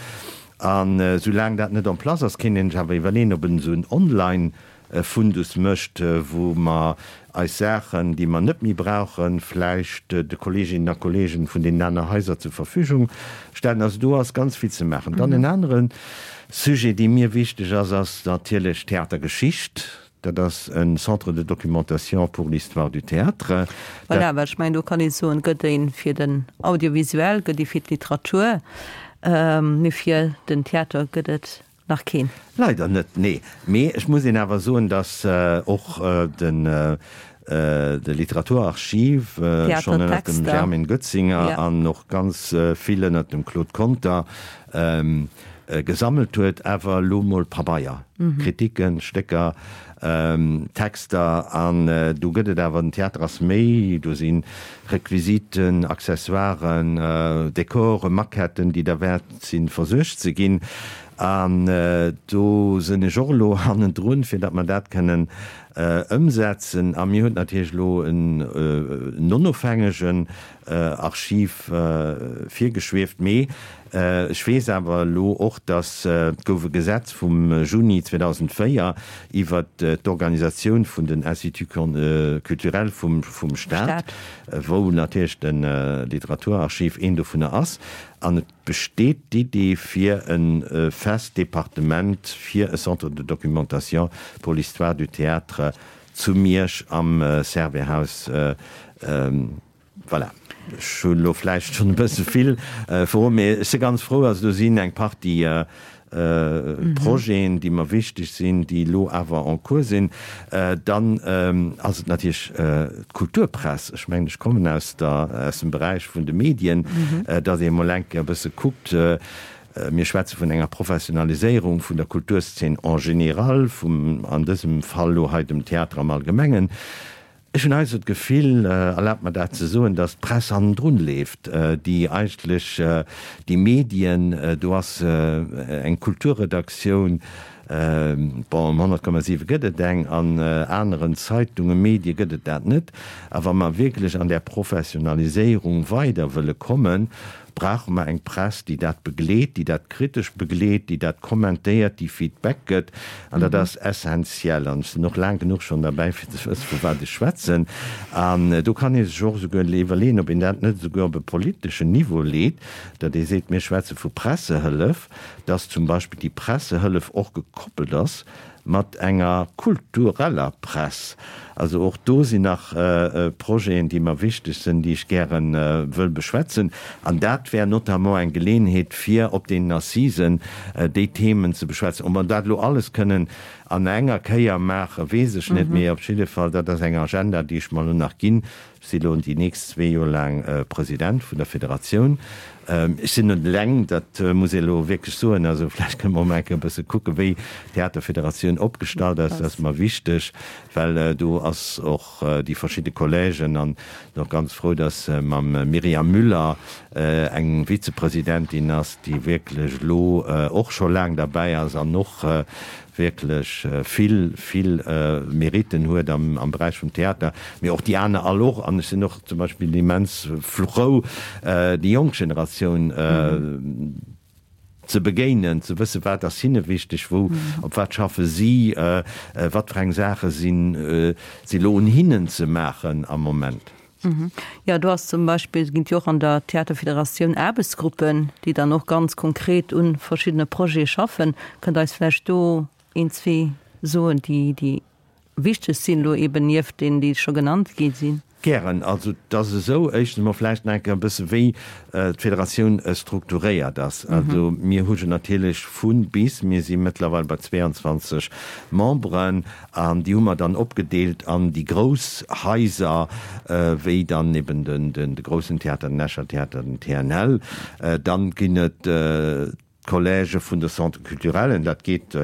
An soulaang dat net en place ass, kéint een sech awer iwwerleeën, ob en esou en Online e Fundus mécht, wou mer eis Saachen, déi mer net méi brauchen, vläicht de Kolleeginnen a Kolleegen vun deenen aner Haiser zur Verfügung stellen. Also do ass ganz vill ze maachen. Dann en anere Sujet, dee mir wichteg ass, ass natierlech d'Theatergeschicht. Dat ass e Centre de documentation pour l'histoire du théâtre. Voilà, well ech mengen, do kann ee soen, gëtt ee fir den Audiovisuel, gëtt ee fir d'Literatur, mee fir den Theater gëtt et Nach keen. Leider net, nee. Mee ech muss een awer soen, datt och de Literaturarchiv schonn ënnert dem Germaine Goetzinger an och ganz vill ënnert dem Claude Conter. gesammelt huet, awer elo mol Pabeier, Kritiken, Stécker, Texter an do gëtt et awer, den Theater ass méi, do si Requisiten, Accessoiren, Dekoren, Maquetten, déi derwäert sinn versuergt ze ginn an do sinn ech och elo hannendrun, fir datt mer dat kënnen ëmsetzen. A mir huet natierlech elo en onofhängegen Archiv virgeschwieft. Mee ech weess awer elo och, datt et gouf e Gesetz vum Juni 2004 iwwert d'Organisatioun vun den Instituts culturels vum Stat, wou natierlech de Literaturarchiv een dovunner ass. An et besteet d'Idee fir e fest Departement fir e Centre de documentation pour l'histoire du théâtre zu Miersch am Servais-Haus. Voilà, ech hunn elo vläicht schonn e bësse vill verroden, mee ech si ganz frou. Also do sinn eng Partie Projeten, déi mer wichteg sinn, déi elo awer en cours sinn. Dann ass et natierlech d'Kulturpress. Ech mengen, ech kommen aus der, aus dem Beräich vun de Medien, datt ee mol eng Kéier e bësse kuckt, mir schwätze vun enger Professionaliséierung vun der Kulturszen en général, vum, an dësem Fall elo hei dem Theater am Allgemengen. Ech hunn heiansdo d'Gefill, erlaabt mer dat ze soen, datt d'Press hannendrun leeft, déi eigentlech déi Medien, do ass eng Kulturredaktioun, bon um 100,7 gëtt et eng, an aneren Zeitungen, Medie gëtt et dat net. A wa mer wierklech an där Professionaliséierung weider wëlle kommen, brauche mer eng Press, déi dat begleet, déi dat kritesch begleet, déi dat kommentéiert, déi Feedback gëtt. An dat ass essenziell. An ech sinn och laang genuch schonn derbäi, fir ze wëssen, vu wat ech schwätzen. An do kann ee sech och esouguer iwwerleeën, ob een dat net esouguer op e politeschen Niveau leet, datt ee seet, mir schwätze vu Pressehëllef, datt zum Beispill déi Pressehëllef och gekoppelt ass mat enger kultureller Press. Also och do sinn nach Projeten, déi mer wichteg sinn, déi ech gäre wëll beschwätzen. An dat wär notamment eng Geleeënheet, fir op deenen Assisen déi Themen ze beschwätzen. Ob mer dat elo alles kënnen an enger Kéier maachen, weess ech net, mee op jidde Fall, dat ass eng Agenda, déi ech mer elo nach ginn. Ech si elo déi nächst zwee Joer laang President vun der Federatioun. Ech sinn net eleng, dat muss ee elo wierklech soen. Also vläicht kënne mer och mol eng Kéier e bësse kucken, wéi d'Theaterfederatioun opgestallt ass. Dat ass mer wichteg, well do ass och déi verschidde Collègen an sinn och ganz frou, datt mam Myriam Müller eng Vizepresidentin ass, déi wierklech elo och scho laang derbäi ass an och wierklech vill, vill Meritten huet am Beräich vum Theater, mee och déi aner all och. An ech sinn och zum Beispill immens frou, déi jonk Generatioun ze begéinen, ze wëssen, wat ass hinne wichteg, wou, op wat schaffe si, wat fir eng Saache sinn si elo un hinnen ze maachen am Moment. Jo, do ass zum Beispill, et ginn jo och an der Theaterfederatioun Aarbechtsgruppen, déi dann och ganz konkret u verschiddene Projete schaffen. Kënnt Der eis vläicht do een, zwee soen, déi, déi wichteg sinn, elo eeben nieft deenen, déi scho genannt gi sinn? Gären. Also et ass esou, éischtens emol vläicht nach eng Kéier e bësse wéi d'Federatioun strukturéiert ass. Also mir hu jo natierlech vu bis, mir si mëttlerweil bei 22 Memberen, An déi hu mer dann opgedeelt an déi grouss Haiser, wéi dann eben de groussen Theater, den Escher Theater, den TNL. Dann ginn et d'Collègë vun de Centres culturellen, dat geet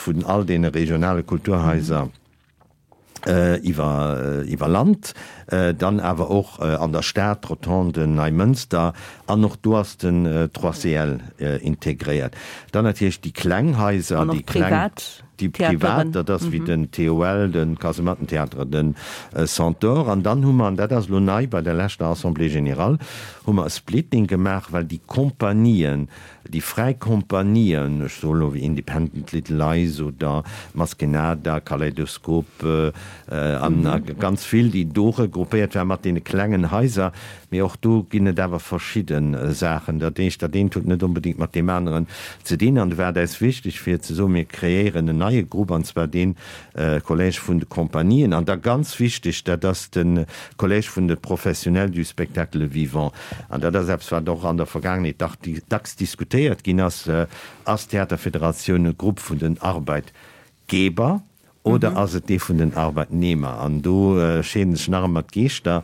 vun all deene regionale Kulturhaiser iwwer Land, dann awer och an der Stad, d'Rotonden, Neimënster, an och do ass den 3CL integréiert. Dann natierlech déi kleng Haiser, déi kleng. Déi privat, dat ass wéi den TOL, de Kasemattentheater, den Centaure. An dann hu mer, an dat ass elo nei bei der leschter Assemblée générale, hu mer e Splitting gemaach, well déi Compagnien, déi fräi Compagnien, ech soe elo wéi Independent Little Lies oder Maskenada, Kaleidoskop an ganz vill, déi do regroupéiert waren mat deene klengen Haiser, Mee och do ginn et awer verschidde Saachen. Dat heescht, dat eent huet net onbedéngt mat deem aneren ze dinn. An do war et äis wichteg fir ze soen, mir kreéieren en neie Grupp, an zwar dee Collège vun de Compagnien. An da ganz wichteg, dat ass de Collège vun de Professionnels du spectacle vivant. An dat ass eppes, wat och an der Vergaangenheet dacks diskutéiert ginn ass, Ass d'Theaterfederatioun e Grupp vun den Arbeitgeber Oder ass et dee vun den Arbeitnehmer? An do scheeden sech nach ëmmer d'Geeschter.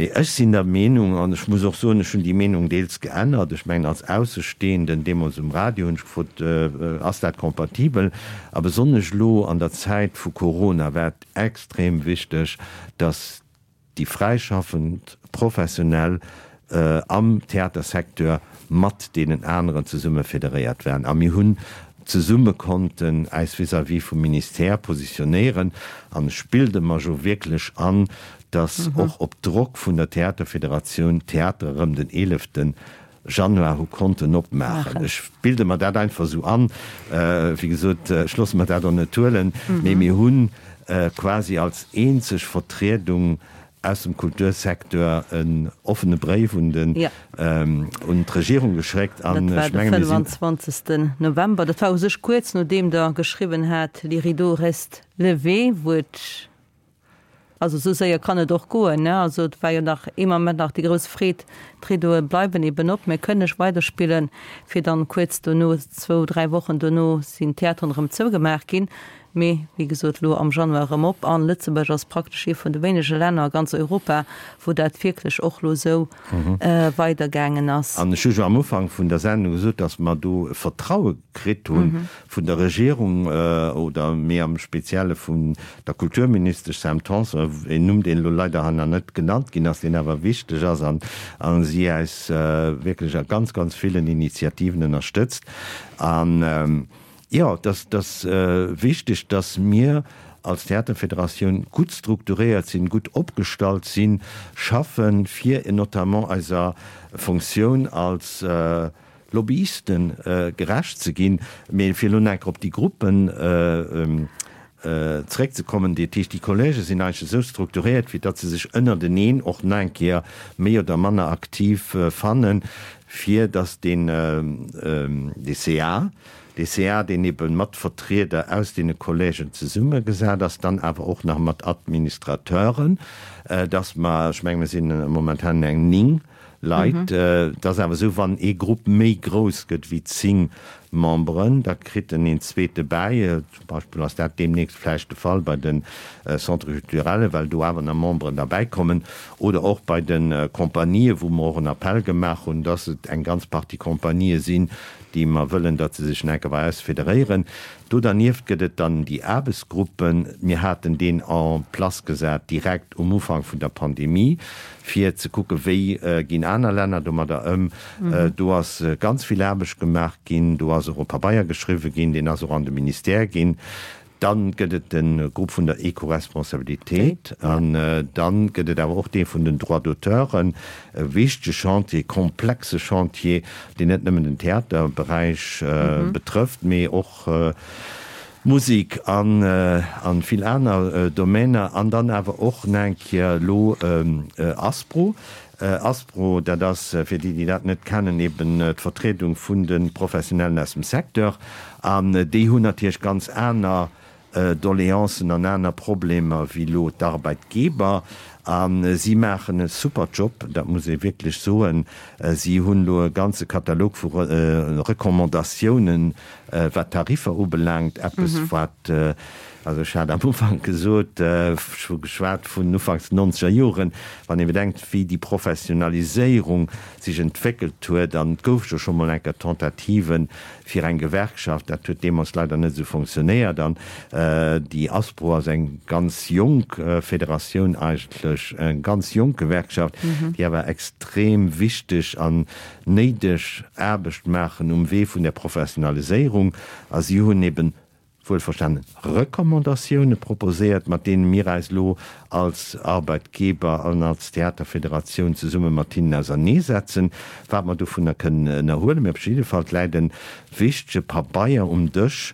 Mee ech sinn der Meenung, an ech muss och soen, ech hunn déi Meenung deels geännert, ech mengen als Aussestehenden, deemools um Radio hunn ech gefrot, ass dat compatibel? A besonnesch elo an der Zäit vu Corona war et extrem wichteg, datt déi fräischaffend Professionell am Theatersecteur mat deenen aneren zesumme federéiert waren a mir hunn zesumme konnten äis vis-à-vis vum Ministère positionéieren. An ech bilde mer jo wierklech an, datt och op Drock vun der Theaterfederatioun d'Theatere rëm den 11. Januar hu konnten opmaachen. Ech bilde mer dat einfach esou an. Wéi gesot, ech loosse mer dat och net huelen, mee mir hu quasi als eenzeg Vertriedung aus dem Kultursecteur en offene Bréif un den, un d'Regierung geschéckt an ech menge mir sinn. Dat war de 25. November. Dat war u sech kuerz nodeem Der geschriwwen hat, Les rideaux restent levés, wou et, also esou séier kann et och goen, ne? Also et war jo nach ee Moment nach déi grouss Freed, d'Rideaue bleiwen eben op, mir kënne weiderspillen, fir dann kuerz dono, zwou, dräi Wochen dono sinn d'Theateren erëm zougemaach ginn. Mee wéi gesot, elo am Januar erëm op. An Lëtzebuerg ass praktesch ee vun de wéinege Länner a ganz Europa, wou dat wierklech och elo esou weidergaangen ass. An ech hu jo am Ufank vun der Sendung gesot, datt mer do e Vertraue kritt hu vun der Regierung oder méi am Spezielle vun der Kulturministesch Sam Tanson, een Numm, deen elo leider hei nach net genannt ginn ass, deen awer wichteg ass an si äis wierklech a ganz, ganz villen Initiativen ënnerstëtzt. An Jo, et ass wichteg, dass mir als Theaterfederatioun gutt strukturéiert sinn, gutt opgestallt sinn, schaffen, fir notamment eiser Fonctioun als Lobbyisten gerecht ze ginn. Mee fir elo nach eng Kéier op déi Gruppen zeréckzekommen, dat heescht, déi Collègen sinn eigentlech esou strukturéiert, fir datt se sech ënnerteneen och nach eng Kéier méi oder manner aktiv fannen, fir datt deen dee CA, dee CA, deen ebe mat Vertrieder aus deene Collègen zesummegesat ass, dann awer och nach mat Administrateuren, datt mer, ech menge mir sinn momentan eng 9 Leit, et ass awer esou, wann ee Grupp méi grouss gëtt wéi 10 Memberen, da kritt en een zweete bäi. Zum Beispill ass dat deemnächst vläicht de Fall bei de Centres culturels, well do awer nach Memberen derbäikommen, oder och bei de Compagnië, wou mer och en Appell gemaach hunn, dass et eng ganz Partie Compagnië sinn, déi mer wëllen, datt se sech nach eng Kéier bei eis federéieren. Do dernieft gëtt et dann déi Aarbechtsgruppen. Mir haten deen en place gesat direkt um Ufank vun der Pandemie, fir ze kucken, wéi ginn aner Länner domadder ëm. Do ass ganz vill Aarbecht gemaach ginn. Do ass och e Pabeier geschriwwen ginn, deen ass och an de Ministère ginn. Dann gëtt et de Grupp vun der Ecoresponsabilitéit an dann gëtt et awer och dee vun den Droits d'auteuren, e wichtege Chantier, komplexe Chantier, deen net nëmmen den Theaterberäich betrëfft, mee och d'Musek an vill aner Domainer. An dann awer och nach eng Kéier elo ASPRO. ASPRO, dat ass, fir déi, déi dat net kennen, eben d'Vertriedung vun de Professionellen aus dem Secteur. An déi hunn natierlech ganz aner Doleancen an aner Problemer wéi elo d'Arbeitgeber. A si maachen e super Job, dat muss ee wierklech soen. Si hunn elo e ganze Katalog vu Recommandatiounen, wat d'Tariffer ubelaangt, eppes wat, also ech hat am Ufank gesot, ech hu geschwat vun ufanks den nonzeger Joren, wann ee bedenkt, wéi déi Professionaliséierung sech entwéckelt huet, an et gouf jo scho mol eng Kéier Tentativen fir eng Gewerkschaft, dat huet deemools leider net esou fonctionnéiert, an déi ASPRO ass eng ganz jonk Federatioun eigentlech, eng ganz jonk Gewerkschaft, déi awer extrem wichteg an néideg Aarbecht maachen um Wee vun der Professionaliséierung a si hunn eben wuelverstanen Recommandatioune proposéiert, mat deene mir eis elo als Arbeitgeber an als Theaterfederatioun zesumme mat hinnen auserneesetzen, wat mer dovunner kënnen ënnerhuelen. Mee op jidde Fall läit e wichtege Pabeier um Dësch,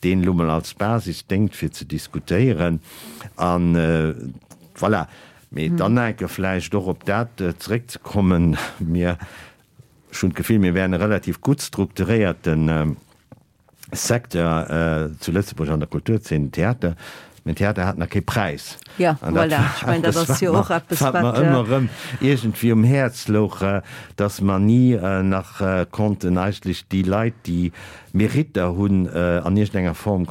deen elo mol als Basis déngt fir ze diskutéieren. A voilà. Mee dann enke vläicht och op dat zeréckzekommen, mir, ech hunn d'Gefill, mir wären e relativ gutt strukturéierte Secteur zu Lëtzebuerg an der Kulturzeen, den Theater. Mä den Theater hat nach kee Präis. Ja, voilà. Ech mengen, dat ass jo och eppes, wat mer ëmmer erëm iergendwéi um Häerz louch, dass mer ni nach konnten eigentlech déi Leit, déi Meritter hunn, an iergendenger Form,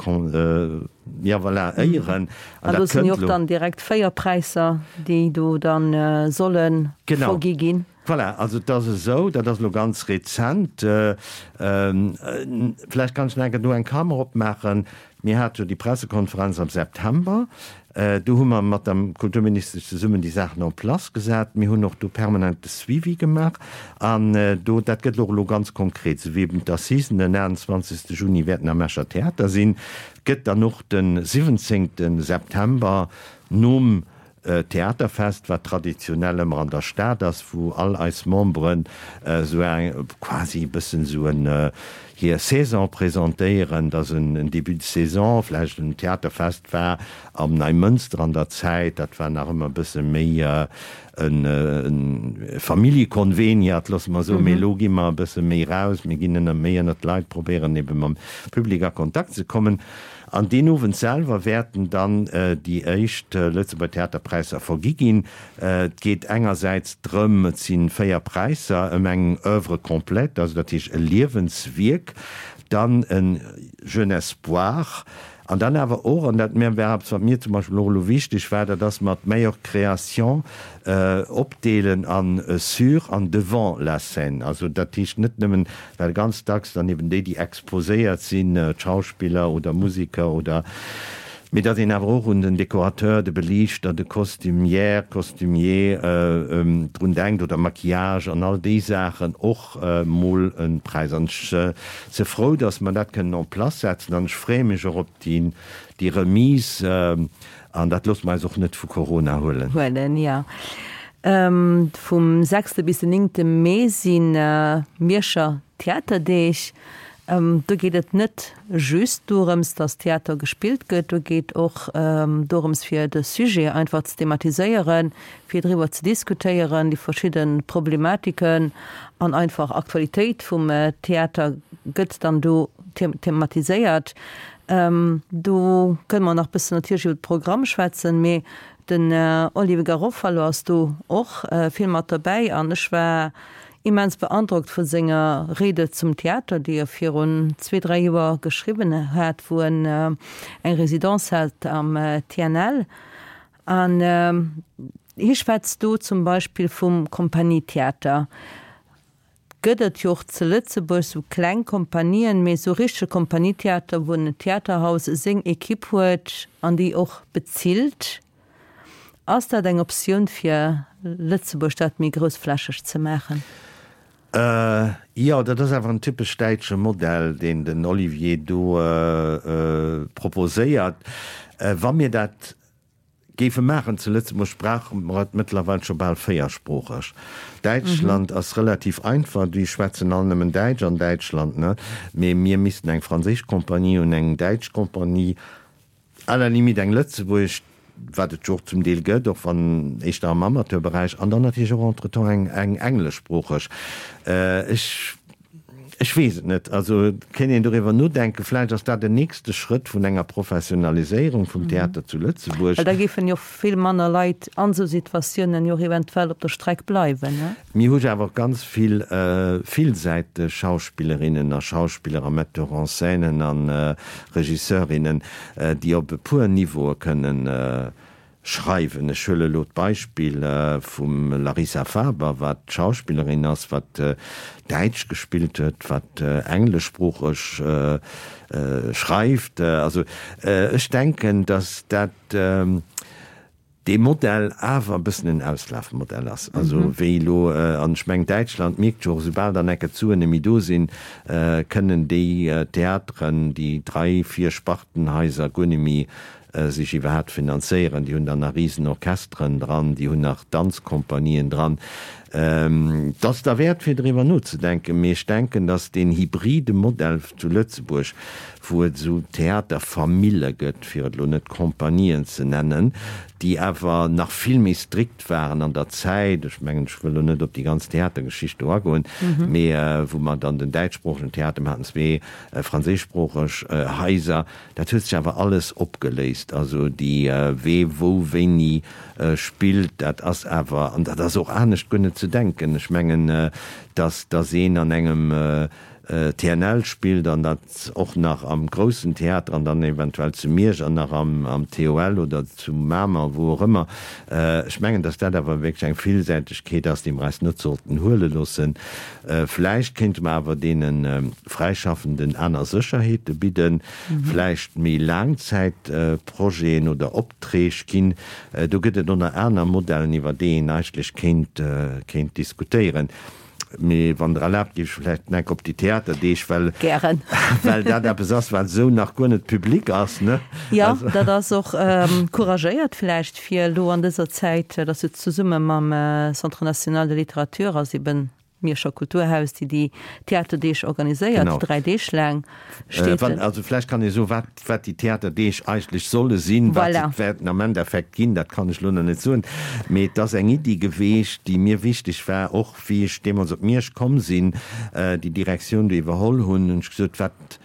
ja voilà, éieren. An do sinn jo och dann direkt 4 Präisser, déi do dann solle vergi ginn. Voilà, also et ass esou, dat ass elo ganz rezent, vläicht kann ech nach eng Kéier do eng Klammer opmaachen, Mir hate jo déi Pressekonferenz am September, do hu mer mat der Kulturministesch zesummen déi Saachen en place gesat. Mir hunn och do permanent de Suivi gemaach an do, dat gëtt och elo ganz konkret, esou wéi eben d'Assisen den 28. Juni wäerten am Escher Theater sinn, gëtt dann och de 17. September nom Theaterfest, wat traditionell ëmmer an der Stad ass, wou all eis Memberen esou eng, quasi e bëssen esou en, hir Saison presentéieren. Dat ass en Début de saison, vläicht en Theaterfest war am Neimënster an der Zäit, dat war nach ëmmer e bësse méi e Familljekonveniat, loosse mer soen, mee elo gi mer e bësse méi raus, mir ginn ënner, méi ënnert d'Leit, probéieren ebe mam Public a Kontakt ze kommen. An deen Owend selwer wäerten dann déi éischt Lëtzebuerger Theaterpräisser vergi ginn. Et geet engersäits drëm, et si 4 Präisser, ëm eng Oeuvre complète, also dat heescht e Liewenswierk, dann e Jeune Espoir an dann awer och, an dat war eppes, wat mir zum Beispill och elo wichteg war, dat ass mat Meilleure Création opdeelen a sur an devant la scène. Also dat heescht net nëmmen Well ganz dacks dann eben déi, déi exposéiert sinn, d'Schauspiller oder Museker oder, mee datt een awer och un den Dekorateur, de Beliichter, de Costumière, Costumier drun denkt oder Maquillage an all déi Saachen och mol e Präis. An ech si frou, datt mer dat kënnen en place setzen an ech freeë mech och op déi Remise an dat loosse mer eis och net vu Corona huelen. Huelen, jo. Vum sechste bis den néngte Mee si Mierscher Theaterdeeg. Do geet et net just dorëms, datt Theater gespillt gëtt, do geet och dorëms fir de Sujet einfach ze thematiséieren, fir driwwer ze diskutéieren, déi verschidde Problematiken an einfach Aktualitéit vum Theater gëtt dann do thematiséiert. Do kënne mer nach bëssen natierlech iwwer de Programm schwätzen, mee Den Olivier Garofalo ass do och vill mat derbäi an ech war immens beandrockt vu senger Rede zum Theater, déi e virun zwee, dräi Joer geschriwwen hat, wou en eng Résidence hat am TNL. An hie schwätzt do zum Beispill vum Kompagnietheater. Gëtt et jo och ze Lëtzebuerg sou kleng Kompanien, mee sou richtege Kompanietheater, wou en Theaterhaus seng Equipe huet an déi och bezilt. Ass dat eng Optioun fir Lëtzebuerg dat méi groussflächeg ze maachen? Jo, dat ass awer en typesch däitsche Modell, deen den Olivier do proposéiert. Wa mir dat Géife maachen. Zu Lëtzebuerg brauche mer et mëttlerweil scho bal véiersproocheg. Däitschland ass relativ einfach, déi schwätzen all nëmmen Däitsch an Däitschland, ne? Mee mir missten eng franséisch Compagnie hunn, eng däitsch Compagnie, à la limite eng lëtzebuergesch, wat et jo och zum Deel gëtt, och wann éischter am Amateurberäich, an dann natierlech och entretemps eng eng engleschsproocheg. Ech. Ech weess et net. Also et kéint een doriwwer nodenken. Vläicht ass dat en nächste Schrëtt vun enger Professionaliséierung vum Theater zu Lëtzebuerg. Well da géifen jo vill manner Leit an esou Situatiounen jo och eventuell op der Streck bleiwen, ne? Mir hu jo awer och ganz vill villsäiteg Schauspillerinnen a Schauspiller a Metteurs-en-scènen a Regisseurinnen, déi op e puer Niveaue kënnen Schreiwen. Ech huele elo d'Beispill vum Larissa Faber, wat Schauspillerin ass, wat Däitsch gespillt huet, wat engleschsproocheg schreift. Also ech denken, datt dat dee Modell awer e bëssen en Auslafmodell ass. Also wéi elo, an ech mengen Däitschland mierkt jo och, esoubal dann enke d'Suen net méi do sinn, kënnen déi Theateren, déi drai, vier Spartenhaiser guer net méi sech iwwerhaapt finanzéieren. Déi hunn dann nach Risenorchesteren dran, déi hunn nach Danzkompanien dran. Et ass derwäert fir driwwer nozedenken, mee ech denken, datt deen hybride Modell zu Lëtzebuerg, wou et esou Theaterfamille gëtt, fir et elo net Compagnien ze nennen, déi awer nach vill méi strikt waren an der Zäit, ech mengen, ech wëll elo net op déi ganz Theatergeschicht do agoen, mee wou mer dann den däitschsproochegen Theater, mer haten zwee franséischsproocheg Haiser, Dat huet sech awer alles opgeléist. Also déi wee wou wéini spillt, dat ass awer, an dat ass och anescht guer net ze denken. Ech mengen, datt datt een an engem TNL spillt an dat och nach am groussen Theater an dann eventuell zu Miersch an nach am am TOL oder zu Mamer, wou och ëmmer. Ech mengen, datt dat awer wierklech eng Villsäitegkeet ass, déi mer eis net sollten huele loossen. Vläicht kéinte mer awer deene Fräischaffenden aner Sécherheete bidden, vläicht méi Laangzäitprojeten oder Opträg ginn. Do gëtt et ënner aner Modellen, iwwer déi een eigentlech kéint, kéint diskutéieren. Mee wann Der erlaabt, géif ech vläicht nach op déi Theaterdeeg, well, Gären. well dat eppes ass, wat esou nach guer net public ass, ne? Jo, dat ass och couragéiert vläicht, fir elo an dëser Zäit, dat ass jo zesumme mam Centre national de littérature ass eben Mierscher Kulturhaus, déi déi Theaterdeeg organiséiert, Genau. 3 Deeg laang steet Wann, den. also vläicht kann ee soen, wat, wat déi Theaterdeeg eigentlech solle sinn, wat se Voilà. wäerten am Endeffekt ginn, dat kann ech elo nach net soen. Mee et ass eng Iddi geweecht, déi mir wichteg war, och wéi ech deemools op Miersch komm sinn, déi Direktioun do iwwerholl hunn, hunn ech gesot, wat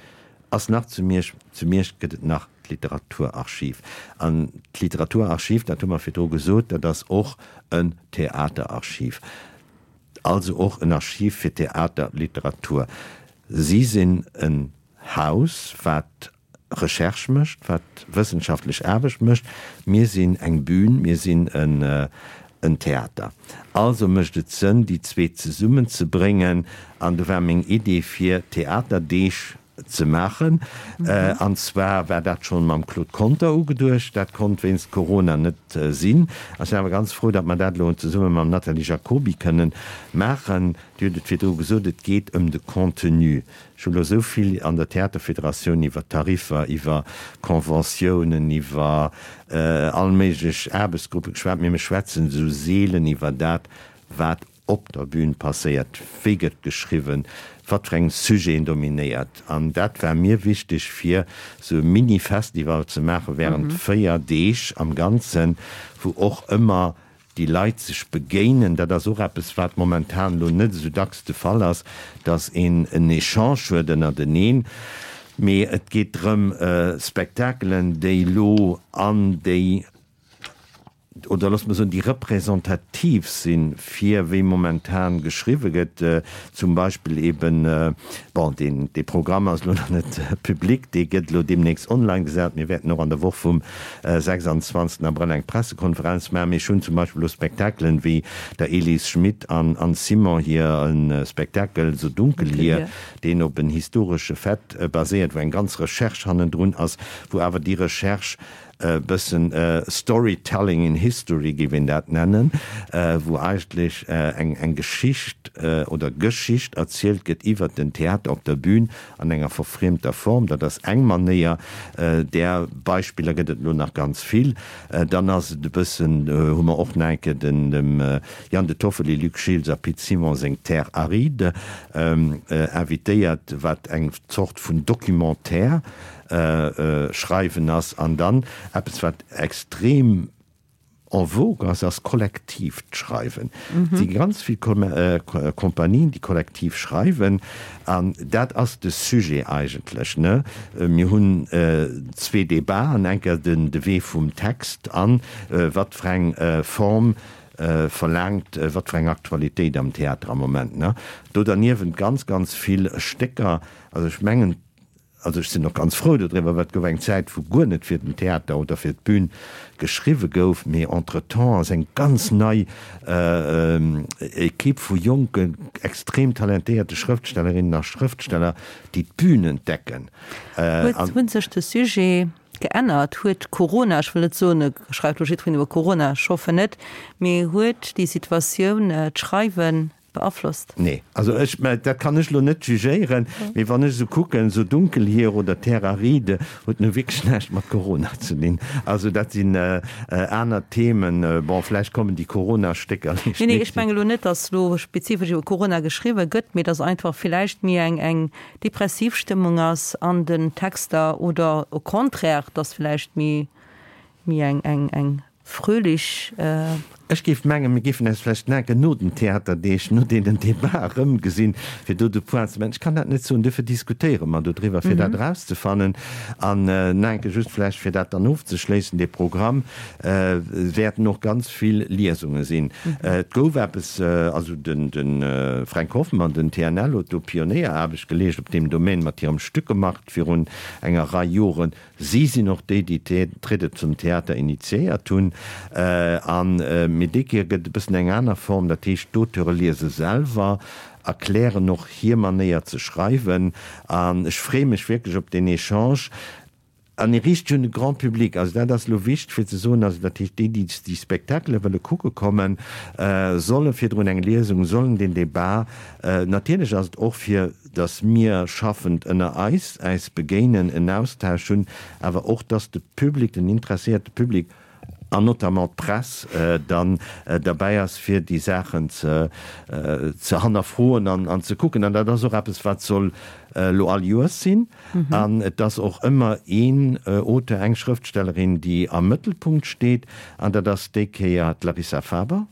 ass nach zu Miersch? Zu Miersch gëtt et nach d'Literaturarchiv. An d'Literaturarchiv, dat hu mer virdru gesot, dat ass och en Theaterarchiv. Also och en Archiv fir Theater, Literatur. Si sinn en Haus, wat Recherche mécht, wat wëssenschaftlech Aarbecht mécht. Mir sinn eng Bühn, mir sinn en Theater. Also mécht et Sënn, déi zwee zesummenzebréngen. An do war meng Idee, fir Theaterdeeg ze maachen. An zwar war dat schonn mam Claude Conter ugeduecht. Dat konnt wéinst Corona net sinn. Ech sinn awer ganz frou, datt mer dat elo zesumme mam Nathalie Jacoby kënnen maachen. Dir hutt et virdru gesot, et geet ëm de Contenu. Ech hu elo esou vill an der Theaterfederatioun iwwer Tariffer, iwwer Conventiounen, iwwer all méiglech Aarbechtsgruppe geschwat, mee mir schwätzen esou seelen iwwer dat, wat op der Bühn passéiert, wéi gëtt geschriwwen, wat fir eng Sujeten dominéiert. An dat war mir wichteg, fir esou e Mini-Festival ze maache während 4 Deeg am Ganzen, wou och ëmmer déi Leit sech begéinen. Dat ass och eppes, wat momentan elo net esou dacks de Fall ass, datt een en Echange huet ënnerteneen. Mee et geet drëm, Spektakelen, déi elo an déi oder loosse mer soen, déi representativ sinn, fir wéi momentan geschriwwe gëtt, zum Beispill eben, bon, deen, dee Programm ass elo nach net public, dee gëtt elo deemnächst online gesat, mir wäerten och an der Woch vum 26 Abrëll eng Pressekonferenz maachen, mee ech hunn zum Beispill elo Spektakelen wéi der Elise Schmit an Anne Simon hir e Spektakel So dunkel hier, deen op en historesche Fait baséiert, wou eng ganz Recherche hannendrun ass, wou awer déi Recherche e bëssen Storytelling in History géif een dat nennen, wou eigentlech eng eng Geschicht oder Geschicht erzielt gëtt iwwert den Theater op der Bühn an enger verfriemter Form. Dat ass eng Manéier, där Beispiller gëtt et elo nach ganz vill. Dann ass et e bëssen, hu mer och nach eng Kéier den dem Jan De Toffoli, Luc Schiltz a Pit Simon seng Terre aride invitéiert, wat eng Zort vun Documentaire Schreiwen ass. An dann eppes, wat extrem en vogue ass, ass kollektiivt Schreiwen. Et si ganz vill Kompanien, déi kollektiv schreiwen. An dat ass de Sujet eigentlech, ne? Mir hunn zwee Debaten, eng Kéier den de Wee vum Text an wat fir eng Form verlaangt, wat fir eng Aktualitéit am Theater am Moment, ne? Do derniewent ganz, ganz vill Stécker. Also ech mengen, Also ech sinn och ganz frou dodriwwer, well et gouf eng Zäit, wou guer net fir den Theater oder fir d'Bün geschriwwe gouf, mee entretemps ass eng ganz nei Equipe vu jonken, extrem talentéierte Schrëftstellerinnen a Schrëftsteller, déi d'Bün entdecken. Huet, hunn sech de Sujet geännert? Huet Corona, ech wëll net soen, et schreift elo jiddwereen iwwer Corona, ech hoffen net, mee huet déi Situatioun d'Schreiwen. Beaflosst? Nee, also ech, mä dat kann ech elo net jugéieren, mee wann ech esou kucken, esou Dunkelhier oder Terre aride huet nu wierklech näischt mat Corona ze dinn. Also dat sinn aner Themen. Bon, vläicht kommen déi Corona-Stécker Nee, nee, ech mengen elo net, datt elo spezifesch iwwer Corona geschriwwe gëtt, mee datt einfach villäicht méi eng eng depressiv Stëmmung ass an den Texter oder au contraire, datt vläicht méi méi eng eng eng Fröhlich. Ech géif mengen, mir géifen eis vläicht naken no den Theaterdeeg, no deenen Debat erëmgesinn, fir do de Point ze maachen. Ech kann dat net soen, duerfir diskutéiere mer dodriwwer, fir dat erauszefannen. An naenke just vläicht, fir dat dann ofzeschléissen, dee Programm, wäerten och ganz vill Liesunge sinn. Et gouf eppes, also de Fränk Hoffmann, den TNL, huet do Pionéieraarbecht geleescht op deem Domaine mat hirem Stückemarkt virun enger Rei Joren. Si sinn och déi, déi d'Riede zum Theater initiéiert hunn. An mee déi Kéier gëtt et e bëssen eng aner Form, dat heescht, d'Auteure liese selwer, erklären och hir Manéier ze schreiwen. An ech freeë mech wierklech op deen Echange. An e riicht sech un de Grand public. Also dat ass elo wichteg fir ze soen, also dat heescht, déi, déi déi Spektakele wëlle kucke kommen, solle virdrun eng Liesung, sollen deen Debat, natierlech ass et och fir, dass mir schaffend ënner eis äis begéinen, en Austausch hunn, awer och dass de Public, den interesséierte Public an notamment d'Press dann derbäi ass, fir déi Saachen ze ze hannerfroen an an ze kucken. An dat ass och eppes, wat soll elo all Joers sinn. An et ass och ëmmer een Auteur, eng Schrëftstellerin, déi am Mëttelpunkt steet, an dat ass déi Kéier d'Larissa Faber.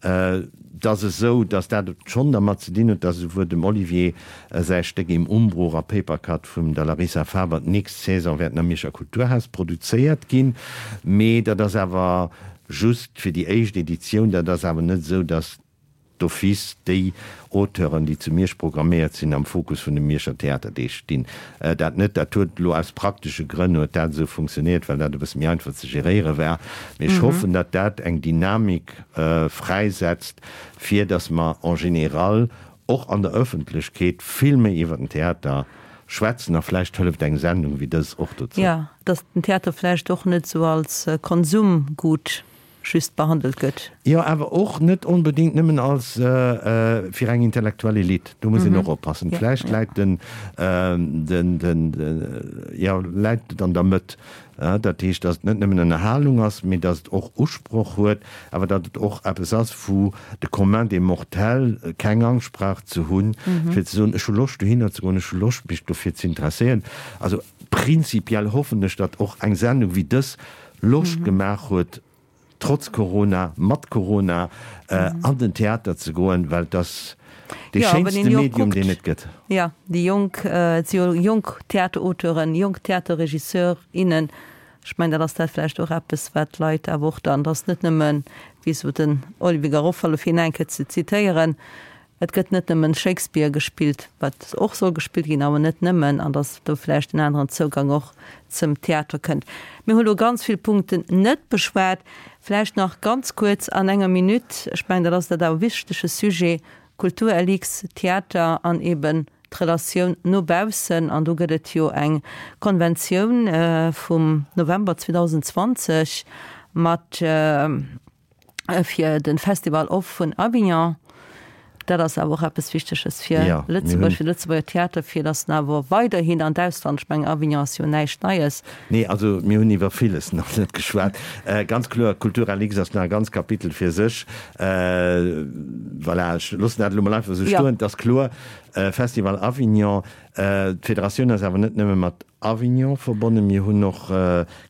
Et ass esou, datt dat schonn dermat ze dinn huet, datt esouwuel dem Olivier säi Stéck Im Umbruch a Papercut vum der Larissa Faber d'nächst Saison wäerten am Mierscher Kulturhaus produzéiert ginn. Mee dat ass awer just fir déi éischt Editioun. Dat ass awer net esou, datt d'office déi Auteuren, déi zu Miersch programméiert sinn, am Fokus vun de Mierscher Theaterdeeg stinn. Dat net. Dat huet elo aus praktesche Grënn huet dat esou funktionéiert, well dat e bësse méi einfach ze geréiere war. Mee ech hoffen, datt dat eng Dynamik fräisetzt, fir datt mer en général och an der Ëffentlechkeet vill méi iwwer den Theater schwätzen. A vläicht hëlleft eng Sendung wéi dës och dozou. Jo, datt den Theater vläicht och net esou als Konsumgut just behandelt gëtt. Jo, awer och net onbedéngt nëmmen als fir eng intellektuell Elite. Do muss een och oppassen. Vläicht läit den, den, den, jo, läit et an der Mëtt. Dat heescht, datt et net nëmmen Ënnerhalung ass, mee datt et och Usproch huet, awer datt et och eppes ass, wou de Commun des mortels keng Angscht brauch ze hunn, fir ze soen, ech hu Loscht dohinner ze goen, ech hu Loscht mech dofir ze interesséieren. Also prinzipiell hoffen ech, datt och eng Sendung wéi dës Loscht gemaach huet, trotz Corona, mat Corona, an den Theater ze goen, well et ass dee schéinste Medium, deen et gëtt. Jo, déi jonk, et si jo jonk Theaterauteuren, jonk Theaterregisseur, innen. Ech mengen, dat ass dat vläicht och eppes, wat d'Leit awer och dann, dass net nëmmen, wéi esou den Olivier Garofalo, fir hien eng Kéier ze zitéieren, Et gëtt net nëmmen Shakespeare gespillt, wat och soll gespillt ginn, awer net nëmmen, an datt do vläicht en aneren Zougang och zum Theater kënnt. Mir hu lo ganz vill Punkten net beschwat. Vläicht nach ganz kuerz an enger Minutt, ech mengen, dat ass dat awer wichtege Sujet, Kultur LX, Theater an eben d'Relatioun no baussen. An do gëtt et jo eng Konventioun vum November 2020 mat, fir den Festival Off vun Avignon. Dat ass awer och eppes Wichteges fir ja, Lëtzebuerg, fir Lëtzebuerger Theater, fir datt en awer weiderhin an d'Ausland, ech mengen Avignon ass jo näischt Neies. Nee, also mir hunn iwwer villes nach net geschwat. Äh, ganz kloer, Culturalix ass nach e ganz Kapitel fir sech. Äh, voilà, ech loossen dat elo mol einfach esou stoen. Et ass kloer, äh, Festival Avignon, äh, d'Federatioun ass awer net nëmme mat Avignon verbonnen. Mir hunn och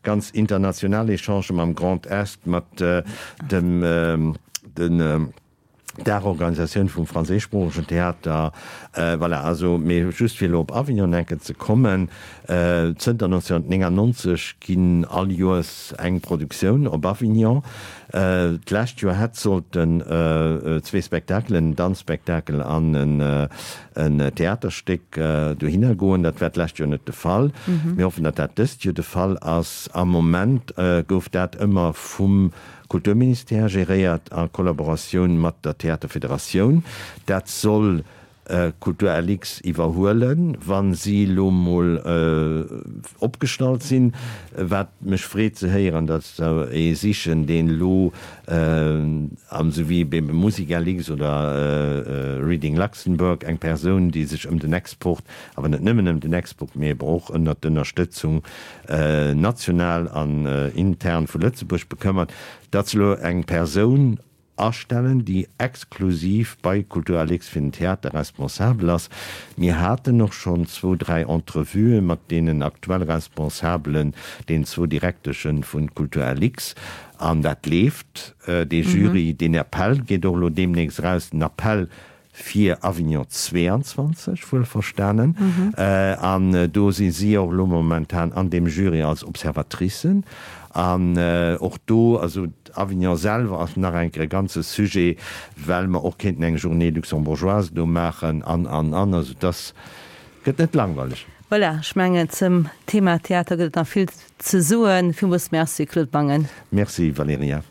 ganz international Echangen mam Grand Est, mat dem den Daachorganisatioun vum franséischsproochegen Theater. Voilà, also, mee just fir elo op Avignon enke ze kommen, Zënter 1999 ginn all Joers eng Produktioun op Avignon. D'lescht Joer hätt sollten zwee Spektakelen, en Danzspektakel an en en Theaterstéck dohinner goen. Dat war d'lescht Joer net de Fall. Mir hoffen, datt dat dëst Joer de Fall ass. Am Moment gouf dat ëmmer vum Kulturministère geréiert a Kollaboratioun mat der Theaterfederatioun. Dat soll. Kultur LX iwwerhuelen, wa si elo mol opgestallt sinn. Wat mech freet ze héieren, datt se ee sichen, deen elo, esou wéi bei Musik LX oder Reading Luxembourg, eng Persoun, déi sech ëm den Export, awer net nëmmen ëm den Export, mee eben och ënnert d'Ënnerstëtzung national an intern vu Lëtzebuerg bekëmmert, datt se elo eng Persoun astellen, déi exklusiv bei Kulturalix fir den Theater responsabel ass. Mir haten och schonn zwou, dräi Entrevuë mat deenen aktuell Responsabelen, deenen zwou Direkteschen vu Kulturalix, an dat leeft. Dee Jury, deen Appell geet och elo deemnächst eraus, den Appell fir Avignon 22, wuelverstanen. An do si si och elo momentan an deem Jury als Observatricen. An och do, also Avignon selwer ass nach eng Kéier e ganze Sujet, well mer och kéinten eng Journée luxembourgeoise do maachen an, an, an. Also dass gëtt net langweileg. Voilà, ech mengen, zum Thema Theater gëtt et nach vill ze soen. Villmools Merci, Claude Mangen. Merci, Valerija.